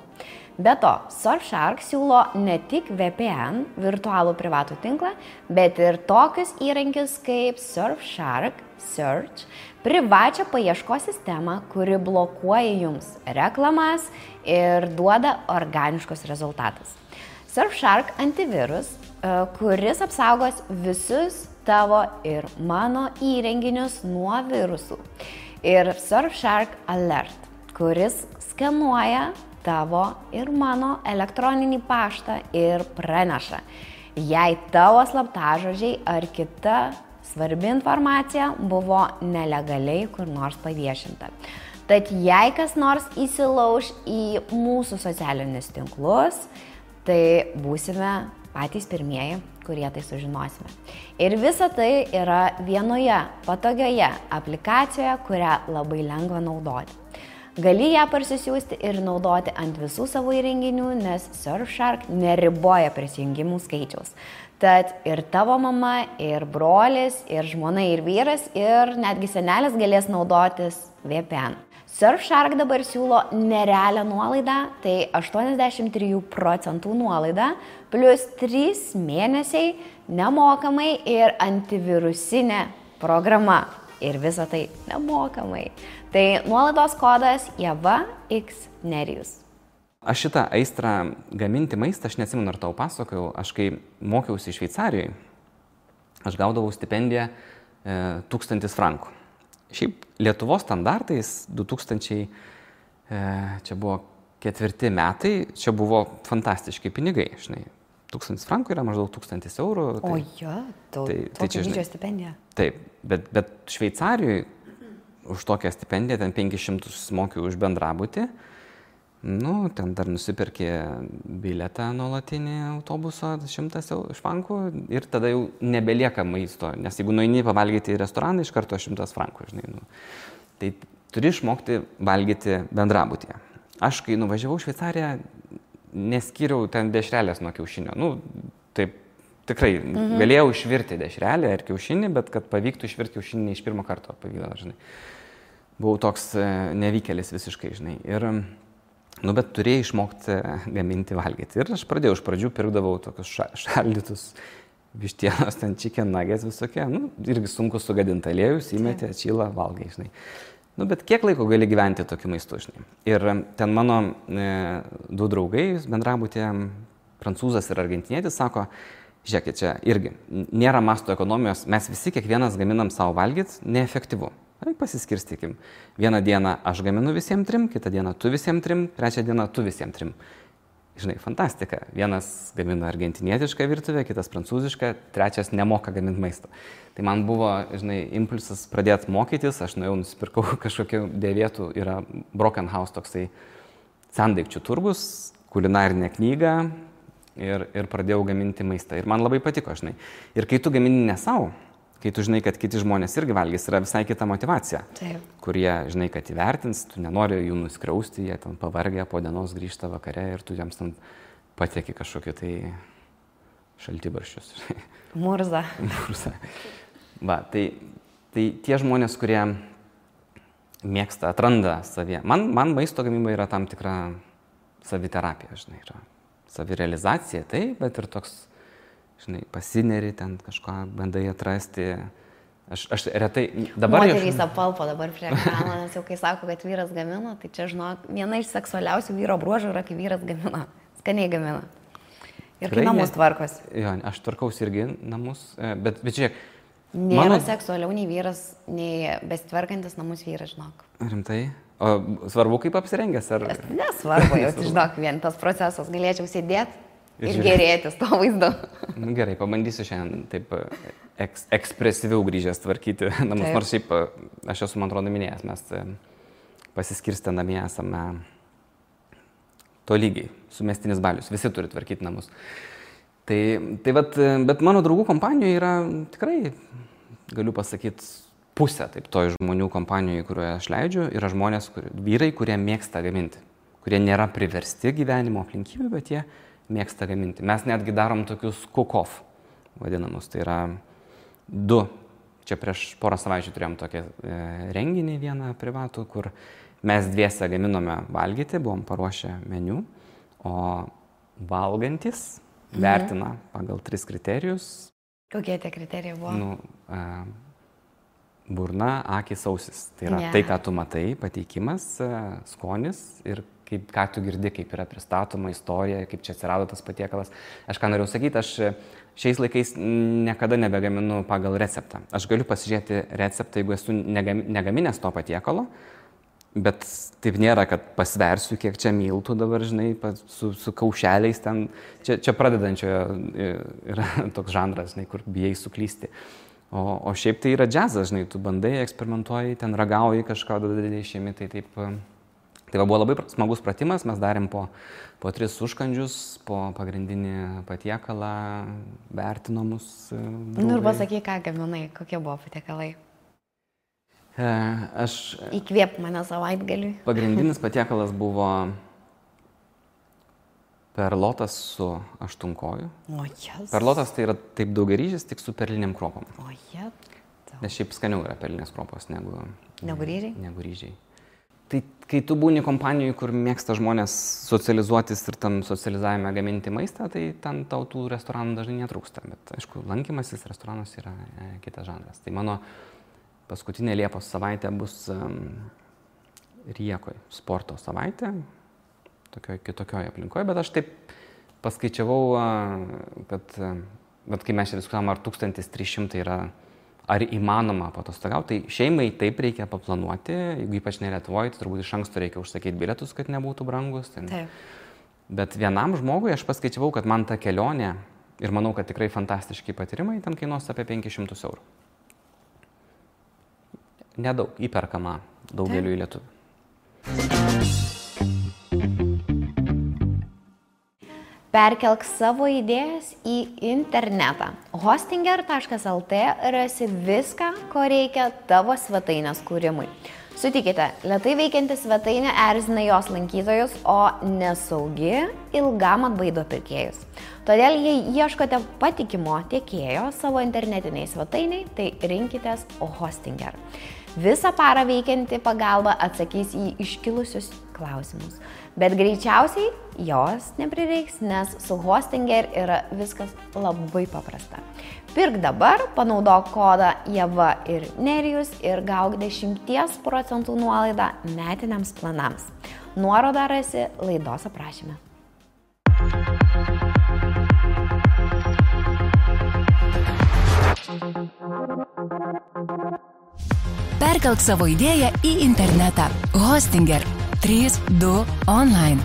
Be to, Surfshark siūlo ne tik VPN, virtualų privatų tinklą, bet ir tokius įrankius kaip Surfshark Search, privačią paieškos sistemą, kuri blokuoja jums reklamas ir duoda organiškus rezultatus. Surfshark antivirus, kuris apsaugos visus tavo ir mano įrenginius nuo virusų. Ir Surfshark Alert, kuris skenuoja tavo ir mano elektroninį paštą ir praneša, jei tavo slaptažodžiai ar kita svarbi informacija buvo nelegaliai kur nors paviešinta. Tad jei kas nors įsilauš į mūsų socialinius tinklus, tai būsime patys pirmieji, kurie tai sužinosime. Ir visa tai yra vienoje patogioje aplikacijoje, kurią labai lengva naudoti. Gali ją parsisiųsti ir naudoti ant visų savo įrenginių, nes Surfshark neriboja prisijungimų skaičiaus. Tad ir tavo mama, ir brolis, ir žmona, ir vyras, ir netgi senelis galės naudotis VPN. Surfshark dabar siūlo nerealią nuolaidą, tai 83% nuolaida, plus 3 mėnesiai nemokamai ir antivirusinė programa. Ir visa tai nemokamai. Tai nuolaidos kodas JAVAXNERIJUS. Aš šitą aistrą gaminti maistą, aš neatsimenu, ar tau pasakojau, aš kai mokiausi Šveicarijoje, aš gaudavau stipendiją 1000 frankų. Šiaip Lietuvos standartais 2000, čia buvo 4 metai, čia buvo fantastiški pinigai, žinai. 1000 frankų yra maždaug 1000 eurų. Tai, tokia didžio stipendija. Taip, bet Šveicarijoje už tokią stipendiją, ten 500 mokiau už bendrabutį, ten dar nusipirkė bilietą nuolatinį autobuso 100 frankų ir tada jau nebelieka maisto, nes jeigu nueini pavalgyti į restoraną, iš karto 100 frankų, žinai. Tai turi išmokti valgyti bendrabutyje. Aš, kai nuvažiavau į Šveicariją, neskyriau ten dešrelės nuo kiaušinio. Taip, tikrai galėjau išvirti dešrelę ar kiaušinį, bet kad pavyktų išvirti kiaušinį iš pirmo karto pavykdavo, žinai. Buvau toks nevykėlis visiškai, žinai. Bet turėjai išmokti gaminti valgyti. Ir aš pradėjau, iš pradžių pirkdavau tokius šaldytus vištienos, ten chicken nuggets visokie. Irgi sunku sugadinti aliejus, įmetė, atšyla, valgai, žinai. Bet kiek laiko gali gyventi tokiu maistu, žinai. Ir ten mano 2 draugai bendrabutė, prancūzas ir argentinietis, sako, žiūrėkit, čia irgi nėra masto ekonomijos, mes visi kiekvienas gaminam savo valgyti, neefektyvu. Pasiskirstykim. Vieną dieną aš gaminu visiems 3, kitą dieną tu visiems 3, trečią dieną tu visiems 3. Žinai, fantastika. Vienas gamina argentinietišką virtuvę, kitas prancūzišką, trečias nemoka gaminti maisto. Tai man buvo, žinai, impulsas pradėti mokytis, aš nuėjau, nusipirkau kažkokių dėvėtų, yra Broken House toksai sendaikčių turgus, kulinarinė knyga ir pradėjau gaminti maistą. Ir man labai patiko, žinai. Ir kai tu gamini ne savo, kai tu žinai, kad kiti žmonės irgi valgys, yra visai kita motyvacija. Taip. Kurie, žinai, kad įvertins, tu nenori jų nuskriausti, jie ten pavargę, po dienos grįžta vakare ir tu jiems ten patieki kažkokį tai šaltibarščius. Murza. Va, tai tie žmonės, kurie mėgsta, atranda savyje. Man maisto gamyba yra tam tikra saviterapija, žinai, yra savirealizacija, tai, bet ir toks, žinai, pasineri ten kažką, bandai atrasti. Aš retai dabar... Moterys apalpo dabar prie ekrano, nes jau kai sako, kad vyras gamina, tai čia, žinok, viena iš seksualiausių vyro bruožų yra, kai vyras gamina. Skaniai gamina. Ir kai namus tvarkos. Jo, aš tvarkausi irgi namus, bet žiūrėk. Nėra seksualiau nei vyras, nei besitvarkantis namus vyras, žinok. Rimtai? O svarbu, kaip apsirengęs, ar... Nesvarbu, jau, žinok, vien tas procesas. Galėčiau sėdėti ir gerėtis to vaizdu. Gerai, pabandysiu šiandien taip ekspresyviau grįžęs tvarkyti namus. Taip. Nors šiaip, aš esu, man atrodo, minėjęs, mes pasiskirstę namie esame tolygiai, sumestinis balius, visi turi tvarkyti namus. Tai bet mano draugų kompanijoje yra tikrai, galiu pasakyti, pusė taip to žmonių kompanijoje, kurioje aš leidžiu, yra žmonės, vyrai, kurie mėgsta gaminti, kurie nėra priversti gyvenimo aplinkybių, bet jie mėgsta gaminti. Mes netgi darom tokius cook-off vadinamus, tai yra 2. Čia prieš porą savaičių turėjom tokį renginį vieną privatų, kur mes dviese gaminome valgyti, buvom paruošę meniu, o valgantis vertina pagal 3 kriterijus. Kokie tie kriterijai buvo? Burna, akys, ausis. Tai yra tai, ką tu matai, pateikimas, skonis ir ką tu girdi, kaip yra pristatoma istorija, kaip čia atsirado tas patiekalas. Aš ką norėjau sakyti, aš šiais laikais niekada nebegaminu pagal receptą. Aš galiu pasižiūrėti receptą, jeigu esu negaminęs to patiekalo, bet taip nėra, kad pasversiu, kiek čia miltų dabar, žinai, su kaušeliais ten. Čia pradedančiojo yra toks žanras, žinai, kur bijai suklysti. O šiaip tai yra džiazas, žinai, tu bandai, eksperimentuoji, ten ragauji kažką, dadai išėmi, tai taip. Tai buvo labai smagus pratimas, mes darėm po 3 užkandžius, po pagrindinį patiekalą, vertinomus. Nu ir pasakyk, ką gaminai, kokie buvo patiekalai. Įkvėp mane savaitgaliui. Pagrindinis patiekalas buvo perlotas su aštunkoju. Perlotas tai yra taip daugiaryžis, tik su perliniam kruopom. Nes šiaip skaniau yra perlinės kruopos negu ryžiai. Tai kai tu būni kompanijoje, kur mėgsta žmonės socializuotis ir tam socializavime gaminti maistą, tai ten tau tų restoranų dažnai netrūksta. Bet aišku, lankymasis restoranas yra kitas žanras. Tai mano paskutinė Liepos savaitė bus Riekoj, sporto savaitė, kitokioje aplinkoje, bet aš taip paskaičiavau, kad kai mes čia diskutavom, ar 1300 yra, ar įmanoma patostogauti, tai šeimai taip reikia paplanuoti, jeigu ypač ne Lietuvoje, tai turbūt iš anksto reikia užsakyti bilietus, kad nebūtų brangus. Bet vienam žmogui aš paskaičiavau, kad man ta kelionė, ir manau, kad tikrai fantastiški patyrimai, ten kainuos apie 500 eurų. Nedaug, įperkama daugeliui lietuvių. Perkelk savo idėjas į internetą. Hostinger.lt rasi viską, ko reikia tavo svetainės kūrimui. Sutikite, lėtai veikianti svetainė erzina jos lankytojus, o nesaugi ilgam atbaido pirkėjus. Todėl, jei ieškote patikimo tiekėjo savo internetiniai svetainiai, tai rinkitės Hostinger. Visą parą veikianti pagalba atsakys į iškilusius klausimus. Bet greičiausiai jos neprireiks, nes su Hostinger yra viskas labai paprasta. Pirk dabar, panaudok kodą Ieva ir Nerijus ir gauk 10% nuolaidą metiniams planams. Nuorodą rasi laidos aprašyme. Perkelk savo idėją į internetą. Hostinger 3.2 online.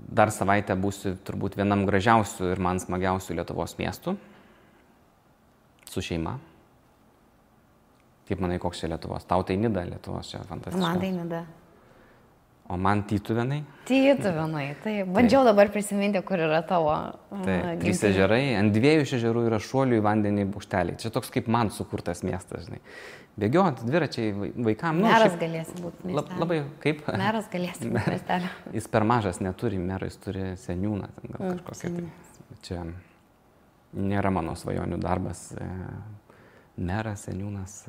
Dar savaitę būsiu turbūt vienam gražiausių ir man smagiausių Lietuvos miestų. Su šeima. Kaip manai, koks čia Lietuvos? Tau tai Nida Lietuvos, čia fantastiškas. Man tai Nida. O man Tytuvėnai. Tytuvėnai, tai bandžiau dabar prisiminti, kur yra tavo. Taip, 3 ežerai, ant 2 ežerų yra šuolių į vandenį bukšteliai. Čia toks kaip man sukurtas miestas, žinai. Bėgiot, dviračiai vaikam. Meras galėsi būti miestelio. Labai, kaip? Meras galėsi būti miestelio. Jis per mažas neturi mero, jis turi seniūną. Gal kažkokia tai. Čia nėra mano svajonių darbas. Meras, seniūnas.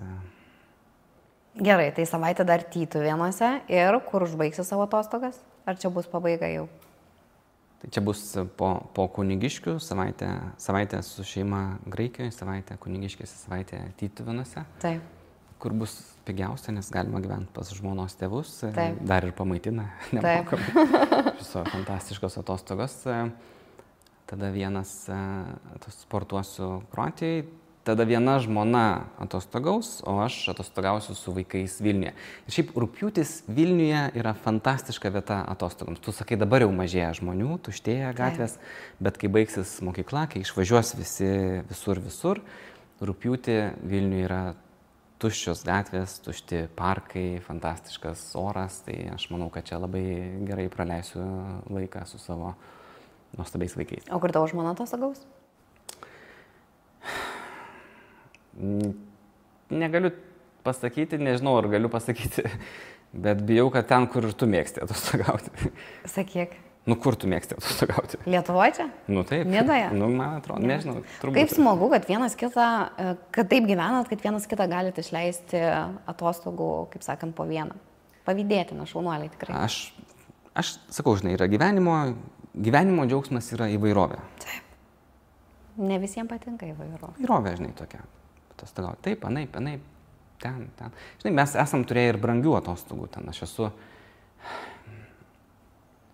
Gerai, tai savaitę dar Tytuvėnuose ir kur užbaigsi savo atostogas? Ar čia bus pabaiga jau? Tai čia bus po Kunigiškių, savaitę su šeima Graikijoje, savaitę Kunigiškėse, savaitę Tytuvėnuose. Taip. Kur bus pigiausia, nes galima gyventi pas žmonos tėvus. Taip. Dar ir pamaitina nemokamai. Viso fantastiškos atostogos. Tada vienas sportuosiu Kroatijai. Tada viena žmona atostogaus, o aš atostogausiu su vaikais Vilniuje. Ir šiaip rugpjūtis Vilniuje yra fantastiška vieta atostogams. Tu sakai, dabar jau mažėja žmonių, tuštėja gatvės, bet kai baigsis mokykla, kai išvažiuos visi visur, rugpjūtį Vilniuje yra tuščios gatvės, tušti parkai, fantastiškas oras, tai aš manau, kad čia labai gerai praleisiu laiką su savo nuostabiais vaikais. O kur tavo žmona atostogaus? Negaliu pasakyti, nežinau, ar galiu pasakyti, bet bijau, kad ten, kur ir tu mėgsti atostogauti. Sakyk. Nu, kur tu mėgsti atostogauti? Lietuvoje čia? Nu, taip. Nidoje? Nu, man atrodo, nežinau, turbūt. Kaip smagu, kad vienas kitą, kad taip gyvenat, kad vienas kitą galite išleisti atostogų, kaip sakant, po vieną. Pavydėtina, šaunuoliai tikrai. Aš sakau, žinai, yra gyvenimo džiaugsmas yra įvairovė. Taip. Ne visiems patinka įvairovė. Įvairovė, žinai, tokia. Atostogauti. Taip, anaip, ten. Žinai, mes esam turėję ir brangių atostogų ten.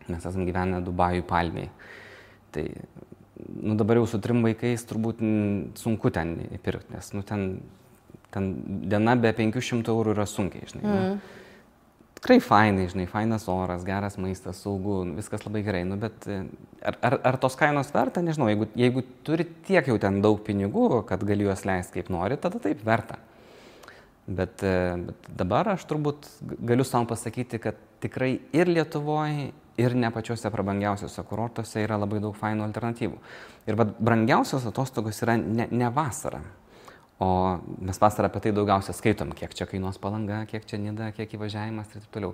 Mes esam gyvenę Dubajų Palmėje. Tai, nu, dabar jau su 3 vaikais turbūt sunku ten įpirkti, nes, nu, ten diena be 500 eurų yra sunkiai, žinai. Nu, tikrai fainai, žinai, fainas oras, geras maistas, saugu, viskas labai gerai, nu, bet ar tos kainos verta, nežinau, jeigu turi tiek jau ten daug pinigų, kad gali juos leisti kaip nori, tada taip verta. Bet dabar aš turbūt galiu savo pasakyti, kad tikrai ir Lietuvoje, ir ne pačiuose prabangiausiuose kurortuose yra labai daug fainų alternatyvų. Ir brangiausios atostogos yra ne vasara, o mes vasarą apie tai daugiausia skaitom, kiek čia kainuos Palanga, kiek čia Nida, kiek įvažiavimas ir taip toliau.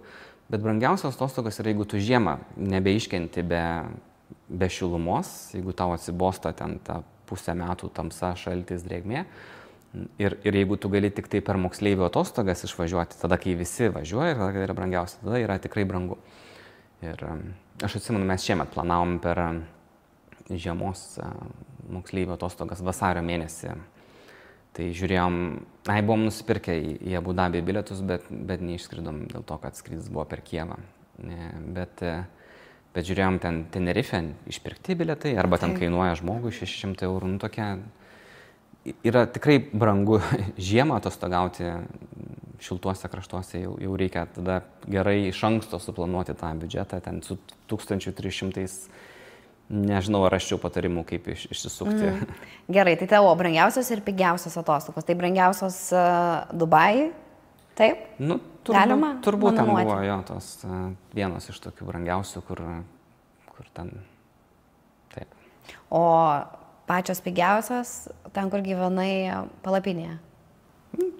Bet brangiausios atostogos yra, jeigu tu žiemą nebeiškenti be šilumos, jeigu tau atsibosta ten tą pusę metų tamsa, šaltis, drėgmė. Ir jeigu tu gali tik tai per moksleivių atostogas išvažiuoti, tada kai visi važiuoja, ir tada yra brangiausia, tada yra tikrai brangu. Ir aš atsimenu, mes šiemet planavom per žiemos moksleivių atostogas vasario mėnesį. Tai žiūrėjom, buvom nusipirkę į Abu Dabį bilietus, bet neišskridom dėl to, kad skrydis buvo per Kijevą. Bet žiūrėjom ten Tenerife išpirkti bilietai, arba ten kainuoja žmogui 600 eurų, nu tokia. Yra tikrai brangu žiemą atostogauti šiltuose kraštuose, jau reikia tada gerai iš anksto suplanuoti tą biudžetą, ten su 1300, nežinau, ar raščiau patarimų, kaip išsisukti. Gerai, tai tavo brangiausios ir pigiausios atostogos, tai brangiausios Dubajai, taip? Nu, turbūt ten buvo jo tos vienos iš tokių brangiausių, kur ten, taip. O pačios pigiausios, ten, kur gyvenai palapinėje.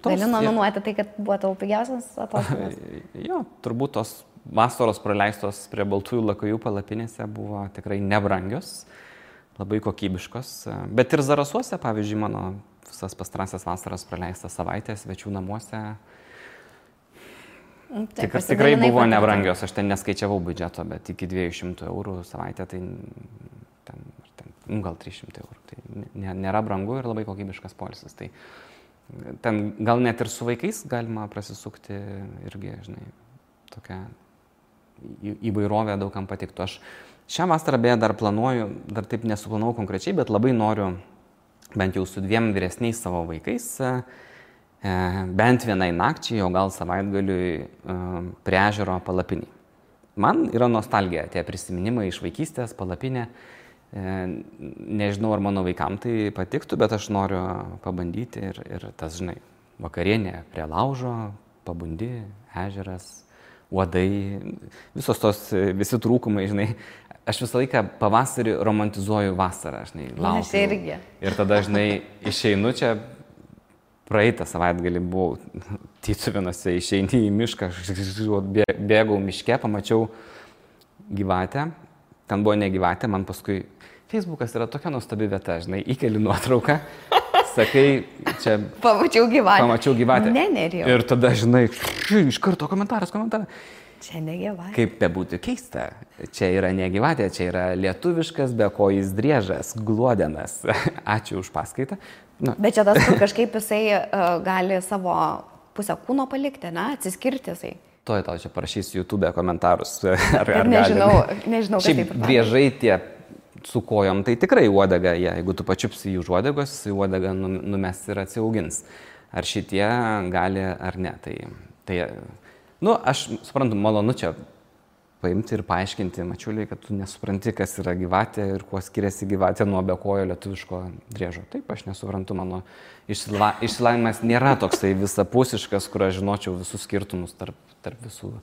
Gali nominuoti tai, kad buvo tavo pigiausias atostogos? Jo, turbūt tos vasaros praleistos prie Baltųjų lakajų palapinėse buvo tikrai nebrangios, labai kokybiškos. Bet ir Zarasuose, pavyzdžiui, mano visas pastarąsias vasaras praleistas savaitės svečių namuose tikrai buvo nebrangios. Aš ten neskaičiavau biudžeto, bet iki 200 eurų savaitę, tai gal 300 eurų. Tai nėra brangu ir labai kokybiškas poilsis. Tai ten gal net ir su vaikais galima prasisukti irgi, žinai, tokia įvairovė daugam patiktų. Aš šią vasarą beje dar planuoju, dar taip nesuplanavau konkrečiai, bet labai noriu bent jau su 2 vyresniais savo vaikais bent vienai nakčiai, o gal savaitgaliui prie ežero palapinį. Man yra nostalgija, tie prisiminimai iš vaikystės, palapinė. Nežinau, ar mano vaikam tai patiktų, bet aš noriu pabandyti ir tas, žinai, vakarienė prie laužo, pabundi, ežeras, uodai, visi trūkumai, žinai. Aš visą laiką pavasarį romantizuoju vasarą, žinai, laukiu. Aš irgi. Ir tada, žinai, išeinu čia, praeitą savaitgalį buvau Tytuvėnuose, išeini į mišką, bėgau miške, pamačiau gyvatę. Ten buvo ne gyvatė, man paskui Facebookas yra tokia nuostabi vieta, žinai, įkeli nuotrauką, sakai, čia... Pamačiau gyvatę. Nerijau. Ir tada, žinai, iš karto komentaras. Čia ne gyvatė. Kaip bebūtų keista, čia yra ne gyvatė, čia yra lietuviškas bekojis driežas, gluodenas. Ačiū už paskaitą. Nu. Bet čia tas, kur kažkaip jisai gali savo pusę kūno palikti, ne, atsiskirti jisai. Tau čia parašysiu YouTube komentarus. Nežinau, kas taip. Driežai tie su kojom, tai tikrai uodega, jeigu tu pačiupsi jų uodegos, uodega numes ir atsiaugins. Ar šitie gali ar ne. Tai aš suprantu, malonu čia paimti ir paaiškinti mačiuliai, kad tu nesupranti, kas yra gyvatė ir kuo skiriasi gyvatė nuo bekojo lietuviško driežo. Taip, aš nesuprantu, mano išsilavinimas nėra toksai visapusiškas, kur aš žinočiau visus skirtumus tarp visų.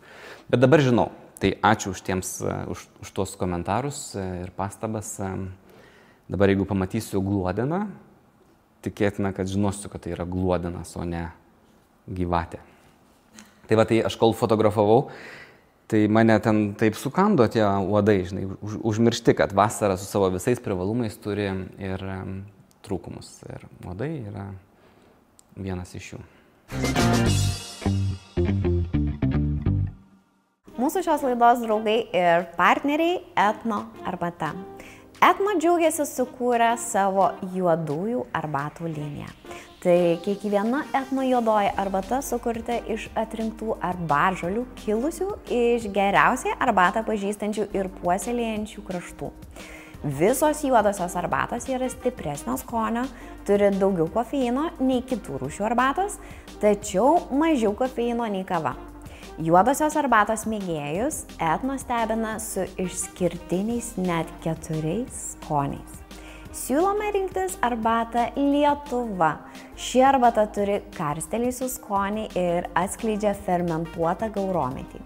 Bet dabar žinau. Tai ačiū už tuos komentarus ir pastabas. Dabar jeigu pamatysiu gluodeną, tikėtina, kad žinosiu, kad tai yra gluodenas, o ne gyvatė. Tai va, tai aš kol fotografavau, Tai mane ten taip sukando tie uodai, žinai, užmiršti, kad vasara su savo visais privalumais turi ir trūkumus. Ir uodai yra vienas iš jų. Mūsų šios laidos draugai ir partneriai Etno arbata. Etno džiaugiasi sukūrę savo juodųjų arbatų liniją. Tai kiekviena Etno juodoji arbata sukurta iš atrinktų arbatžolių kilusių iš geriausiai arbatą pažįstančių ir puoselėjančių kraštų. Visos juodosios arbatos yra stipresnio skonio, turi daugiau kofeino nei kitų rūšių arbatos, tačiau mažiau kofeino nei kava. Juodosios arbatos mėgėjus Etno stebina su išskirtiniais net 4 skoniais. Siūlome rinktis arbatą Lietuva. Ši arbata turi karstelėjusių skonį ir atskleidžia fermentuotą gaurometį.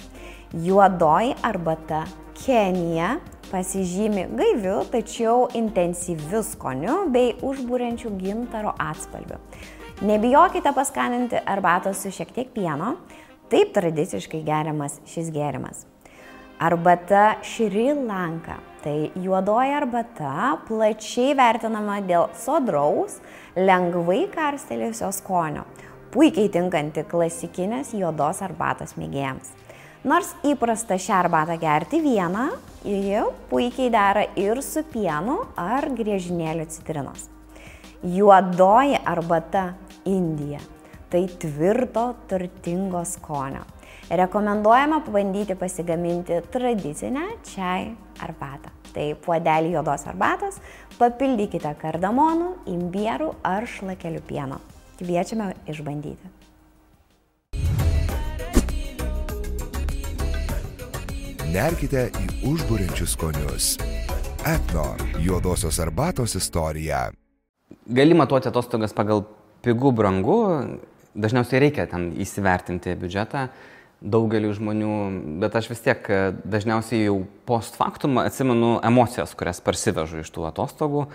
Juodoji arbata Kenija pasižymi gaiviu, tačiau intensyviu skoniu bei užbūrenčiu gintaro atspalviu. Nebijokite paskaninti arbatos su šiek tiek pieno, taip tradiciškai geriamas šis gėrimas. Arbata Šri Lanka. Tai juodoji arbata plačiai vertinama dėl sodraus, lengvai karstelėjusio skonio, puikiai tinkanti klasikinės juodos arbatos mėgėjams. Nors įprasta šią arbatą gerti vieną, ji puikiai dera ir su pienu ar griežinėliu citrinos. Juodoji arbata Indija. Tai tvirto, turtingo skonio. Rekomenduojama pabandyti pasigaminti tradicinę čai arbatą. Tai puodelį juodos arbatos papildykite kardamonų, imbierų ar šlakelių pieno. Kviečiame išbandyti. Nerkite į užburiančius skonius. Etno juodosios arbatos istorija. Gali matuoti atostogas pagal pigų brangu, dažniausiai reikia ten įsivertinti biudžetą daugeliu žmonių, bet aš vis tiek dažniausiai jau post factum atsimenu emocijas, kurias parsivežu iš tų atostogų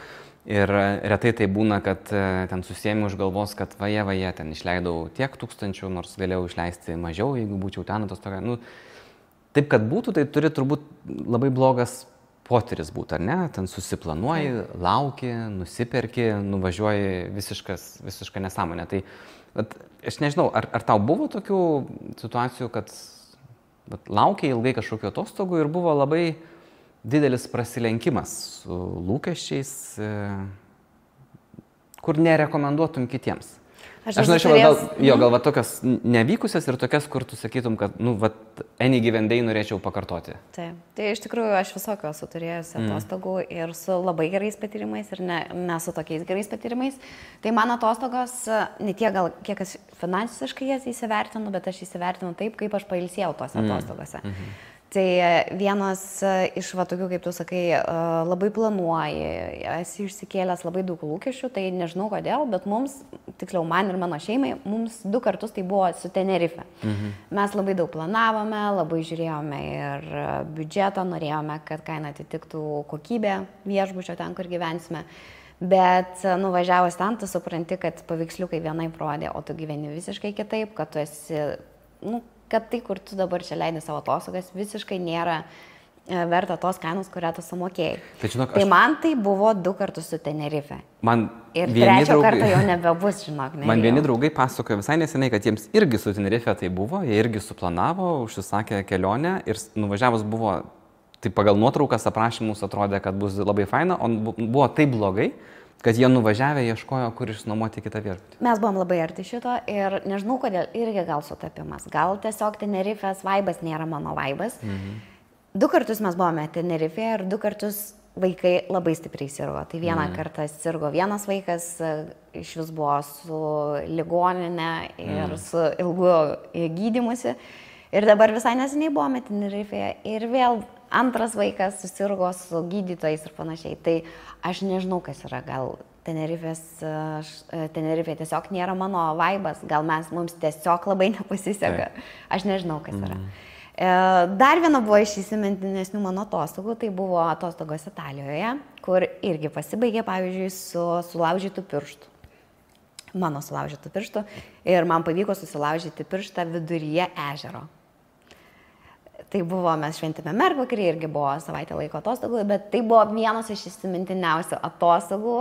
ir retai tai būna, kad ten susiėmiau už galvos, kad vaje, ten išleidau tiek tūkstančių, nors galėjau išleisti mažiau, jeigu būčiau ten atostogą. Nu, taip, kad būtų, tai turi turbūt labai blogas potyris būti, ar ne? Ten susiplanuoji, lauki, nusiperki, nuvažiuoji visišką nesąmonę. Tai aš nežinau, ar tau buvo tokių situacijų, kad laukiai ilgai kažkokių atostogų ir buvo labai didelis prasilenkimas su lūkesčiais, kur nerekomenduotum kitiems? Aš norėčiau gal tokias nevykusias ir tokias, kur tu sakytum, kad, any given day norėčiau pakartoti. Taip. Tai iš tikrųjų aš visokio esu turėjusi atostogų ir su labai gerais patyrimais ir ne su tokiais gerais patyrimais. Tai mano atostogos, ne tiek gal kiek aš finansiškai jas įsivertinu, bet aš įsivertinu taip, kaip aš pailsėjau tose atostogose. Tai vienas iš tokių, kaip tu sakai, labai planuoji, esi išsikėlęs labai daug lūkesčių, tai nežinau kodėl, bet mums, tiksliau man ir mano šeimai, mums 2 kartus tai buvo su Tenerife. Mes labai daug planavome, labai žiūrėjome ir biudžetą, norėjome, kad kaina atitiktų kokybę viešbučio ten, kur gyvensime. Bet nuvažiavus ten, tu supranti, kad paveiksliukai vienaip rodė, o tu gyveni visiškai kitaip, kad tu esi, kad tai, kur tu dabar čia leidai savo atostogas, visiškai nėra verta tos kainos, kurią tu sumokėjai. Tai man tai buvo 2 kartus su Tenerife. Ir 3 kartą jau nebebus, žinok. Man vieni draugai pasakojo visai neseniai, kad jiems irgi su Tenerife tai buvo, jie irgi suplanavo, užsisakė kelionę ir nuvažiavus buvo, tai pagal nuotraukas aprašymus atrodė, kad bus labai faina, o buvo taip blogai, kad jie nuvažiavę ieškojo, kur išnuomoti kitą viešbutį. Mes buvom labai arti šito ir nežinau, kodėl irgi gal sutapimas. Gal tiesiog Tenerifės vaibas nėra mano vaibas. 2 kartus mes buvome Tenerife ir 2 kartus vaikai labai stipriai sirgo. Tai vieną kartą sirgo vienas vaikas, iš vis buvo su ligoninė ir su ilgu gydymusi. Ir dabar visai neseniai buvome Tenerifeje ir vėl antras vaikas susirgo su gydytojais ir panašiai. Tai aš nežinau, kas yra. Gal Tenerife tiesiog nėra mano vaibas, gal mums tiesiog labai nepasiseka. Aš nežinau, kas yra. Dar viena buvo iš įsimintinesnių mano atostogų, tai buvo atostogos Italijoje, kur irgi pasibaigė, pavyzdžiui, su sulaužytų pirštų. Mano sulaužytų pirštų. Ir man pavyko susilaužyti pirštą viduryje ežero. Tai buvo, mes šventėme mergvakarį, irgi buvo savaitę laiko atostogų, bet tai buvo vienas iš įsimintiniausių atostogų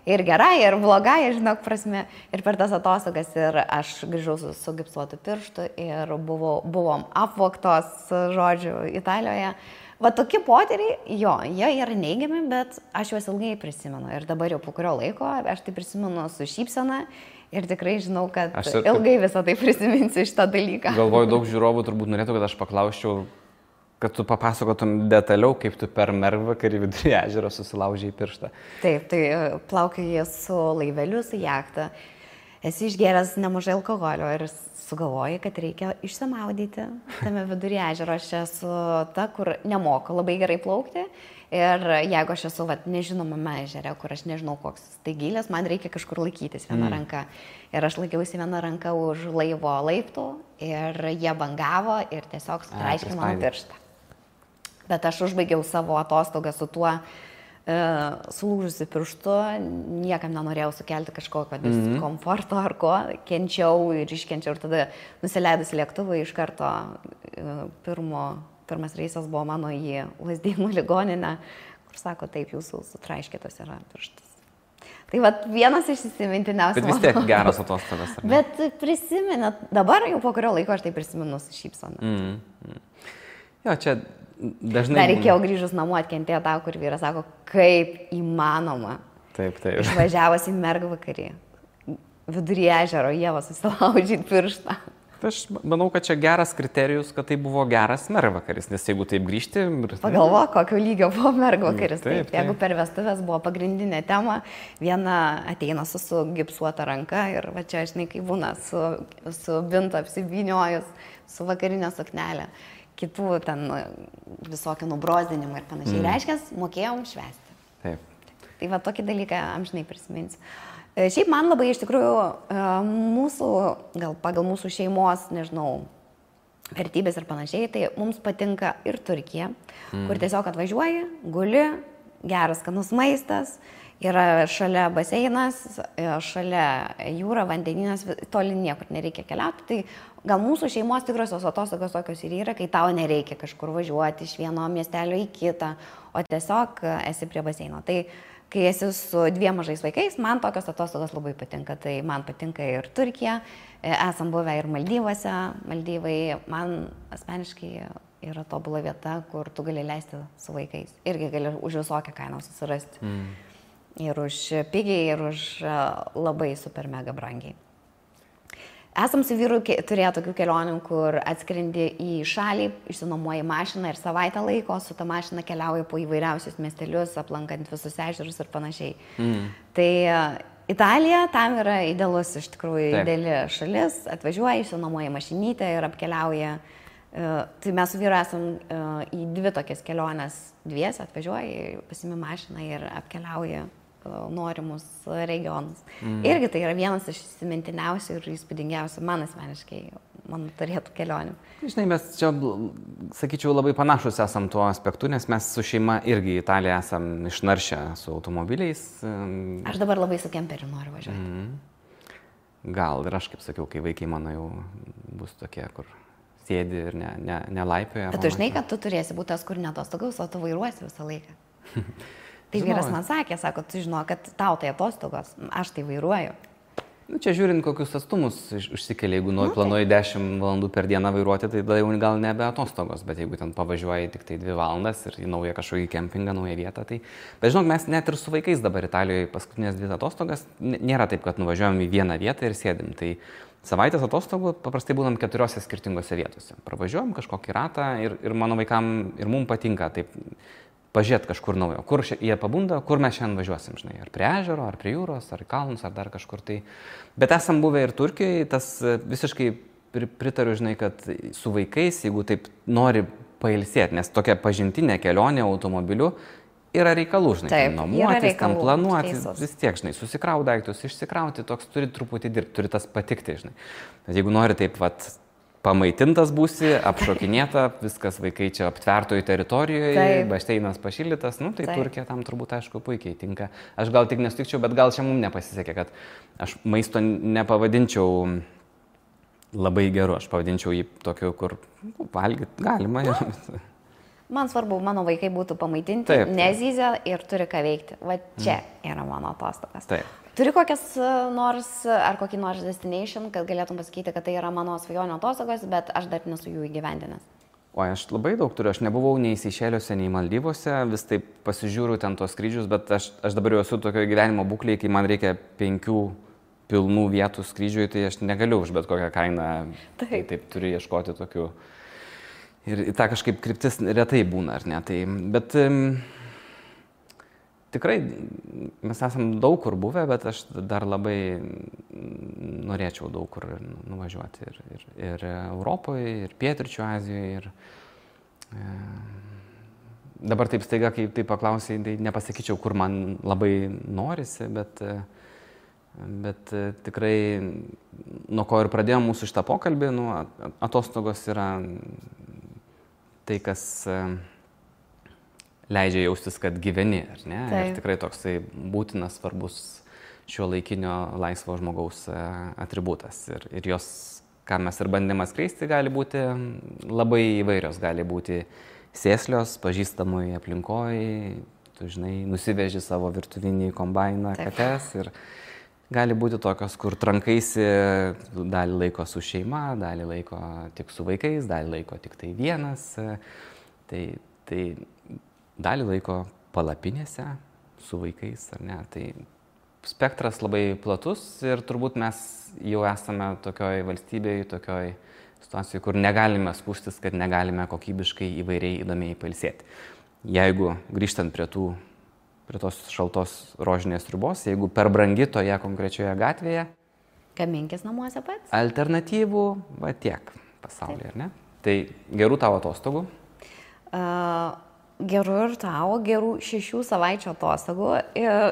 ir gerai, ir blogai, žinok, prasme. Ir per tas atostogas ir aš grįžau su gipsuotu pirštu ir buvom apvogtos, žodžiu, Italijoje. Va tokie potyriai, jo, jie yra neigiami, bet aš juos ilgai prisimenu. Ir dabar jau po kurio laiko aš tai prisimenu su šypsena. Ir tikrai žinau, kad ilgai visą tai prisiminsiu šitą dalyką. Galvoju, daug žiūrovų turbūt norėtų, kad aš paklausčiau, kad tu papasakotum detaliau, kaip tu per mergvakarį vidury ežero susilaužiai pirštą. Taip, tai plaukioji su laiveliu, su jachta. Esi išgėręs nemažai alkoholio ir sugalvoji, kad reikia išsimaudyti tame vidury ežero. Aš esu ta, kur nemoku labai gerai plaukti. Ir jeigu aš esu nežinomame ežere, kur aš nežinau, koks tai gilės, man reikia kažkur laikytis viena ranka. Ir aš laikiausi viena ranka už laivo laiptų ir jie bangavo ir tiesiog sutraiškė mano pirštą. Bet aš užbaigiau savo atostogą su tuo sulūžusi pirštu, niekam nenorėjau sukelti kažkokio diskomforto ar ko, kenčiau ir iškenčiau ir tada nusileidus lėktuvui iš karto pirmas reisas buvo mano į Lazdynų ligoninę, kur sako, taip, jūsų sutraiškytas yra pirštas. Tai vienas iš įsimintiniausių. Bet vis tiek geras atostogas. Bet prisimenat, dabar jau po kurio laiko aš tai prisimenu su šypsena. Jo, čia dažnai... Dar reikėjo grįžus namo atkentėti tą, kur vyras sako, kaip įmanoma. Taip. Išvažiavus į mergvakarį, vidury ežero, Ieva susilaužyti pirštą. Aš manau, kad čia geras kriterijus, kad tai buvo geras mergvakaris, nes jeigu taip grįžti... Pagalvok, kokio lygio buvo mergvakaris. Taip. Jeigu per vestuvės buvo pagrindinė tema, viena ateina su gipsuota ranka ir va čia, žinai, kai būna su bintu apsivyniojus, su vakarinė suknelė, kitų ten visokių nubrozdinimų ir panašiai. Reiškia, mokėjom švęsti. Taip. Tai va tokį dalyką amžinai prisiminsiu. Šiaip man labai iš tikrųjų gal pagal mūsų šeimos, nežinau, vertybės ir panašiai, tai mums patinka ir Turkija, kur tiesiog atvažiuoji, guli, geras skanus maistas, yra šalia baseinas, šalia jūra, vandeninas, toli niekur nereikia keliauti. Tai gal mūsų šeimos tikrosios atostogos tokios ir yra, kai tau nereikia kažkur važiuoti iš vieno miestelio į kitą, o tiesiog esi prie baseino. Tai kai esi su 2 mažais vaikais, man tokios atostogos labai patinka. Tai man patinka ir Turkija, esam buvę ir Maldyvuose. Maldyvai man asmeniškai yra tobula vieta, kur tu gali leisti su vaikais. Irgi gali už visokią kainą susirasti. Ir už pigiai, ir už labai super mega brangiai. Esam su vyru turėję tokių kelionių, kur atskrendi į šalį, išsinuomoji mašiną ir savaitę laiko, su ta mašina keliauji po įvairiausius miestelius, aplankant visus ežerus ir panašiai. Tai Italija tam yra idealus, iš tikrųjų, ideali šalis, atvažiuoji, išsinuomoji mašinytę ir apkeliauji. Tai mes su vyru esam į 2 tokias keliones dviese, atvažiuoji, pasimi mašiną ir apkeliauji norimus regionus. Irgi tai yra vienas iš įsimintiniausių ir įspūdingiausių man asmeniškai, man turėtų kelionių. Žinai, mes čia, sakyčiau, labai panašus esam tuo aspektu, nes mes su šeima irgi į Italiją esam išnaršę su automobiliais. Aš dabar labai su kemperiu noriu važiuoti. Gal ir aš, kaip sakiau, kai vaikai mano jau bus tokie, kur sėdi ir nelaipioja. Bet tu žinai, kad tu turėsi būti tas, kur neatostogaus, o tu vairuosi visą laiką. Tai vyras man sakė, sako, tu žinau, kad tau tai atostogos, aš tai vairuoju. Čia žiūrint, kokius atstumus užsikelia, jeigu planuoji 10 valandų per dieną vairuoti, tai tada jau gal nebe atostogos, bet jeigu ten pavažiuoji tik tai 2 valandas ir į naują kažkokį kempingą, naują vietą, tai... Bet žinok, mes net ir su vaikais dabar Italijoje paskutinės 2 atostogas, nėra taip, kad nuvažiuojam į vieną vietą ir sėdim. Tai savaitės atostogų paprastai būnam 4 skirtingose vietose. Pravažiuojam kažkokį ratą ir mano vaikam ir mums patinka taip pažiūrėti kažkur naujo. Kur jie pabunda, kur mes šiandien važiuosim, žinai, ar prie ežero, ar prie jūros, ar į kalnus, ar dar kažkur tai. Bet esam buvę ir Turkijoje, tas visiškai pritariu, žinai, kad su vaikais, jeigu taip nori pailsėti, nes tokia pažintinė kelionė automobiliu yra reikalų, žinai, taip, nuomotis, tam planuoti, vis tiek, žinai, susikrauti daiktus, išsikrauti, toks turi truputį dirbti, turi tas patikti, žinai. Bet jeigu nori taip, pamaitintas būsi, apšokinėta, viskas vaikai čia aptvertoj teritorijoje, bašteinas pašildytas, tai Turkija tam turbūt, aišku, puikiai tinka. Aš gal tik nesutikčiau, bet gal čia mums nepasisekė, kad aš maisto nepavadinčiau labai geru, aš pavadinčiau jį tokiu, kur valgyti galima. Man svarbu, mano vaikai būtų pamaitinti, Taip. nezyzia ir turi ką veikti. Va čia yra mano atostogas. Taip. Turi kokias kokį nors destination, kad galėtum pasakyti, kad tai yra mano svajonio atostogos, bet aš dar nesu jų įgyvendinęs. O aš labai daug turiu, aš nebuvau nei Seišeliuose, nei Maldyvose, vis taip pasižiūriu ten tos skrydžius, bet aš dabar jau esu tokio gyvenimo būklėje, kai man reikia 5 pilnų vietų skrydžiui, tai aš negaliu už bet kokią kainą. Taip turiu ieškoti tokių. Ir ta kažkaip kryptis retai būna, ar ne? Tai, bet tikrai mes esam daug kur buvę, bet aš dar labai norėčiau daug kur nuvažiuoti. Ir Europoje, ir Pietryčių Azijoje. Ir dabar taip staiga, kai tai paklausai, tai nepasakyčiau, kur man labai norisi, bet tikrai nuo ko ir pradėjome mūsų šitą pokalbį, atostogos yra tai, kas leidžia jaustis, kad gyveni, ar ne? Taip. Ir tikrai toksai būtinas, svarbus šiuolaikinio laisvo žmogaus atributas. Ir jos, ką mes ir bandėme skleisti, gali būti labai įvairios, gali būti sėslios, pažįstamoj aplinkoj, tu žinai, nusiveži savo virtuvinį kombainą kates ir gali būti tokios, kur trankaisi dalį laiko su šeima, dalį laiko tik su vaikais, dalį laiko tik tai vienas, tai dalį laiko palapinėse su vaikais, ar ne. Tai spektras labai platus ir turbūt mes jau esame tokioj valstybėje, tokioj situacijoje, kur negalime skųstis, kad negalime kokybiškai įvairiai įdomiai pailsėti. Jeigu grįžtant prie tos šaltos rožinės ribos, jeigu per brangi toje konkrečioje gatvėje. Gaminkis namuose pats? Alternatyvų, va tiek pasaulyje, ar ne? Tai gerų tavo atostogų? Gerų ir tavo, gerų 6 savaičių atostogų. Ir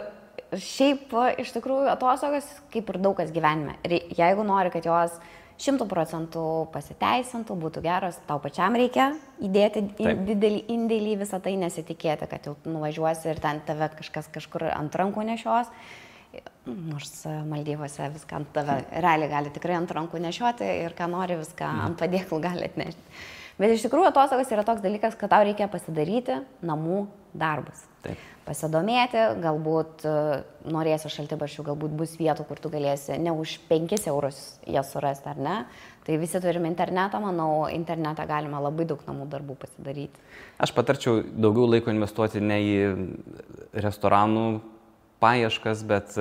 šiaip iš tikrųjų atostogas kaip ir daug kas gyvenime. Ir jeigu nori, kad jos 100% pasiteisintų, būtų geros, tau pačiam reikia įdėti didelį indėlį visą tai, nesitikėti, kad jau nuvažiuosi ir ten tave kažkas kažkur ant rankų nešios. Nors Maldyvose viską ant tave realiai gali tikrai ant rankų nešioti ir ką nori viską ant padėklų gali atnešti. Bet iš tikrųjų atostogas yra toks dalykas, kad tau reikia pasidaryti namų darbus. Taip. Pasidomėti, galbūt norėsi šaltibarščių, galbūt bus vietų, kur tu galėsi ne už 5 eurus jas surasti, ar ne. Tai visi turime internetą, manau, internetą galima labai daug namų darbų pasidaryti. Aš patarčiau daugiau laiko investuoti ne į restoranų paieškas, bet...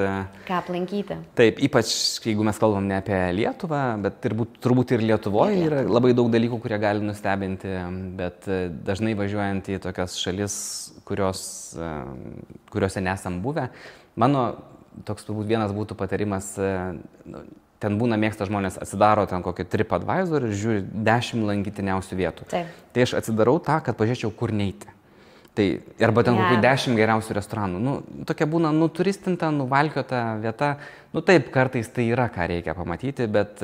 Ką aplankyti. Taip, ypač jeigu mes kalbam ne apie Lietuvą, bet turbūt ir Lietuvoje yra labai daug dalykų, kurie gali nustebinti, bet dažnai važiuojant į tokias šalis, kuriuose nesam buvę. Mano toks turbūt vienas būtų patarimas, ten būna mėgsta žmonės, atsidaro ten kokį TripAdvisor ir žiūri 10 lankytiniausių vietų. Taip. Tai aš atsidarau tą, kad pažiūrėčiau, kur neiti. Tai, arba ten kokių 10 geriausių restoranų. Tokia būna turistinta, nuvalkiota vieta. Taip, kartais tai yra, ką reikia pamatyti, bet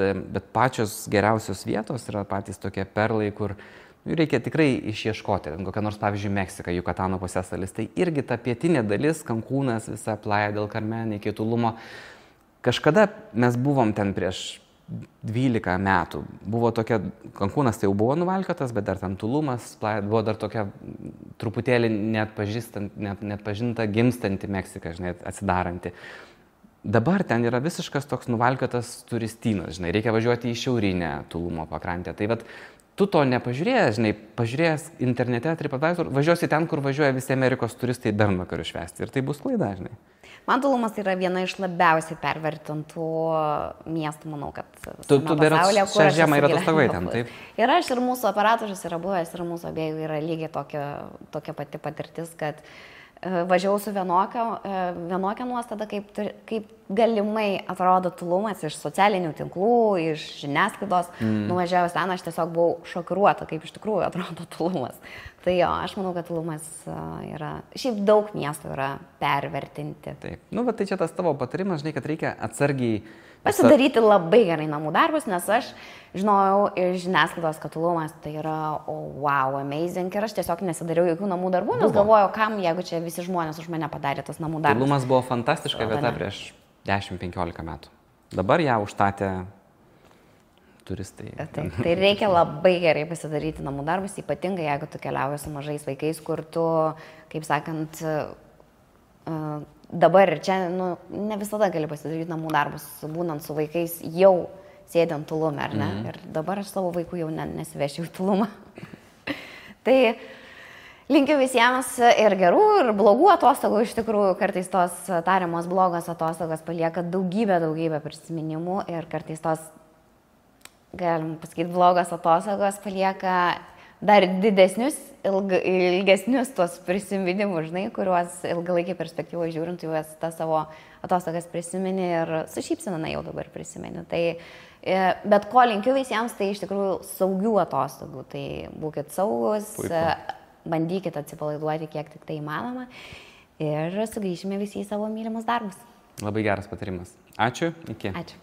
pačios geriausios vietos yra patys tokie perlai, kur reikia tikrai išieškoti. Kokia nors, pavyzdžiui, Meksika, Jukatano pusiasalis. Tai irgi ta pietinė dalis, Cancūnas, visa Playa del Carmen, iki Tulumo. Kažkada mes buvom ten prieš 12 metų. Buvo tokia, Cancūnas tai jau buvo nuvalkiotas, bet dar ten Tulumas, buvo dar tokia truputėlį neatpažinta, gimstanti Meksika, žinai, atsidaranti. Dabar ten yra visiškas toks nuvalkiotas turistynas, žinai, reikia važiuoti į šiaurinę Tulumo pakrantę. Tai vat, tu to nepažiūrėjęs, žinai, pažiūrėjęs internete, TripAdvisor, važiuosi ten, kur važiuoja visi Amerikos turistai bernvakarių švęsti. Ir tai bus klaida, žinai. Man Tulumas yra viena iš labiausiai pervertintų miestų, manau, kad Tu pasaulyje, šią žiemą yra atostogavai ten, taip? Ir aš, ir mūsų operatorius yra buvęs, ir mūsų abiejų yra lygiai tokia pati patirtis, kad važiavau su vienokia nuostada, kaip galimai atrodo Tulumas iš socialinių tinklų, iš žiniasklaidos. Nuvažiavus ten, aš tiesiog buvau šokiruota, kaip iš tikrųjų atrodo Tulumas. Tai jo, aš manau, kad Tulumas yra, šiaip daug miestų yra pervertinti. Taip. Bet tai čia tas tavo patarimas, žinai, kad reikia atsargiai pasidaryti labai gerai namų darbus, nes aš žinojau iš žiniasklaidos, kad Tulumas tai yra wow, amazing, ir aš tiesiog nesidariau jokių namų darbų, nes galvojau, kam, jeigu čia visi žmonės už mane padarė tas namų darbus. Tulumas buvo fantastiška vieta prieš 10-15 metų. Dabar ją užstatė turistai. Taip, tai reikia labai gerai pasidaryti namų darbus, ypatingai jeigu tu keliauji su mažais vaikais, kur tu, kaip sakant, dabar ir čia, ne visada gali pasidaryti namų darbus, būnant su vaikais jau sėdint Tulume, ar ne? Ir dabar aš savo vaikų jau nesivešiu į Tulumą. Tai linkiu visiems ir gerų, ir blogų atostogų. Iš tikrųjų, kartais tos tariamos blogos atostogos palieka daugybę prisiminimų ir kartais tos, galim pasakyti, blogos atostogos palieka dar didesnius, ilgesnius tuos prisiminimus, žinai, kuriuos ilgalaikį perspektyvą žiūrint, juos tą savo atostogas prisimeni ir su šypsena jau dabar prisimeni. Tai, bet ko linkiu visiems, tai iš tikrųjų saugių atostogų. Tai būkit saugus, bandykit atsipalaiduoti kiek tik tai įmanoma ir sugrįšime visi į savo mylimus darbus. Labai geras patarimas. Ačiū, iki. Ačiū.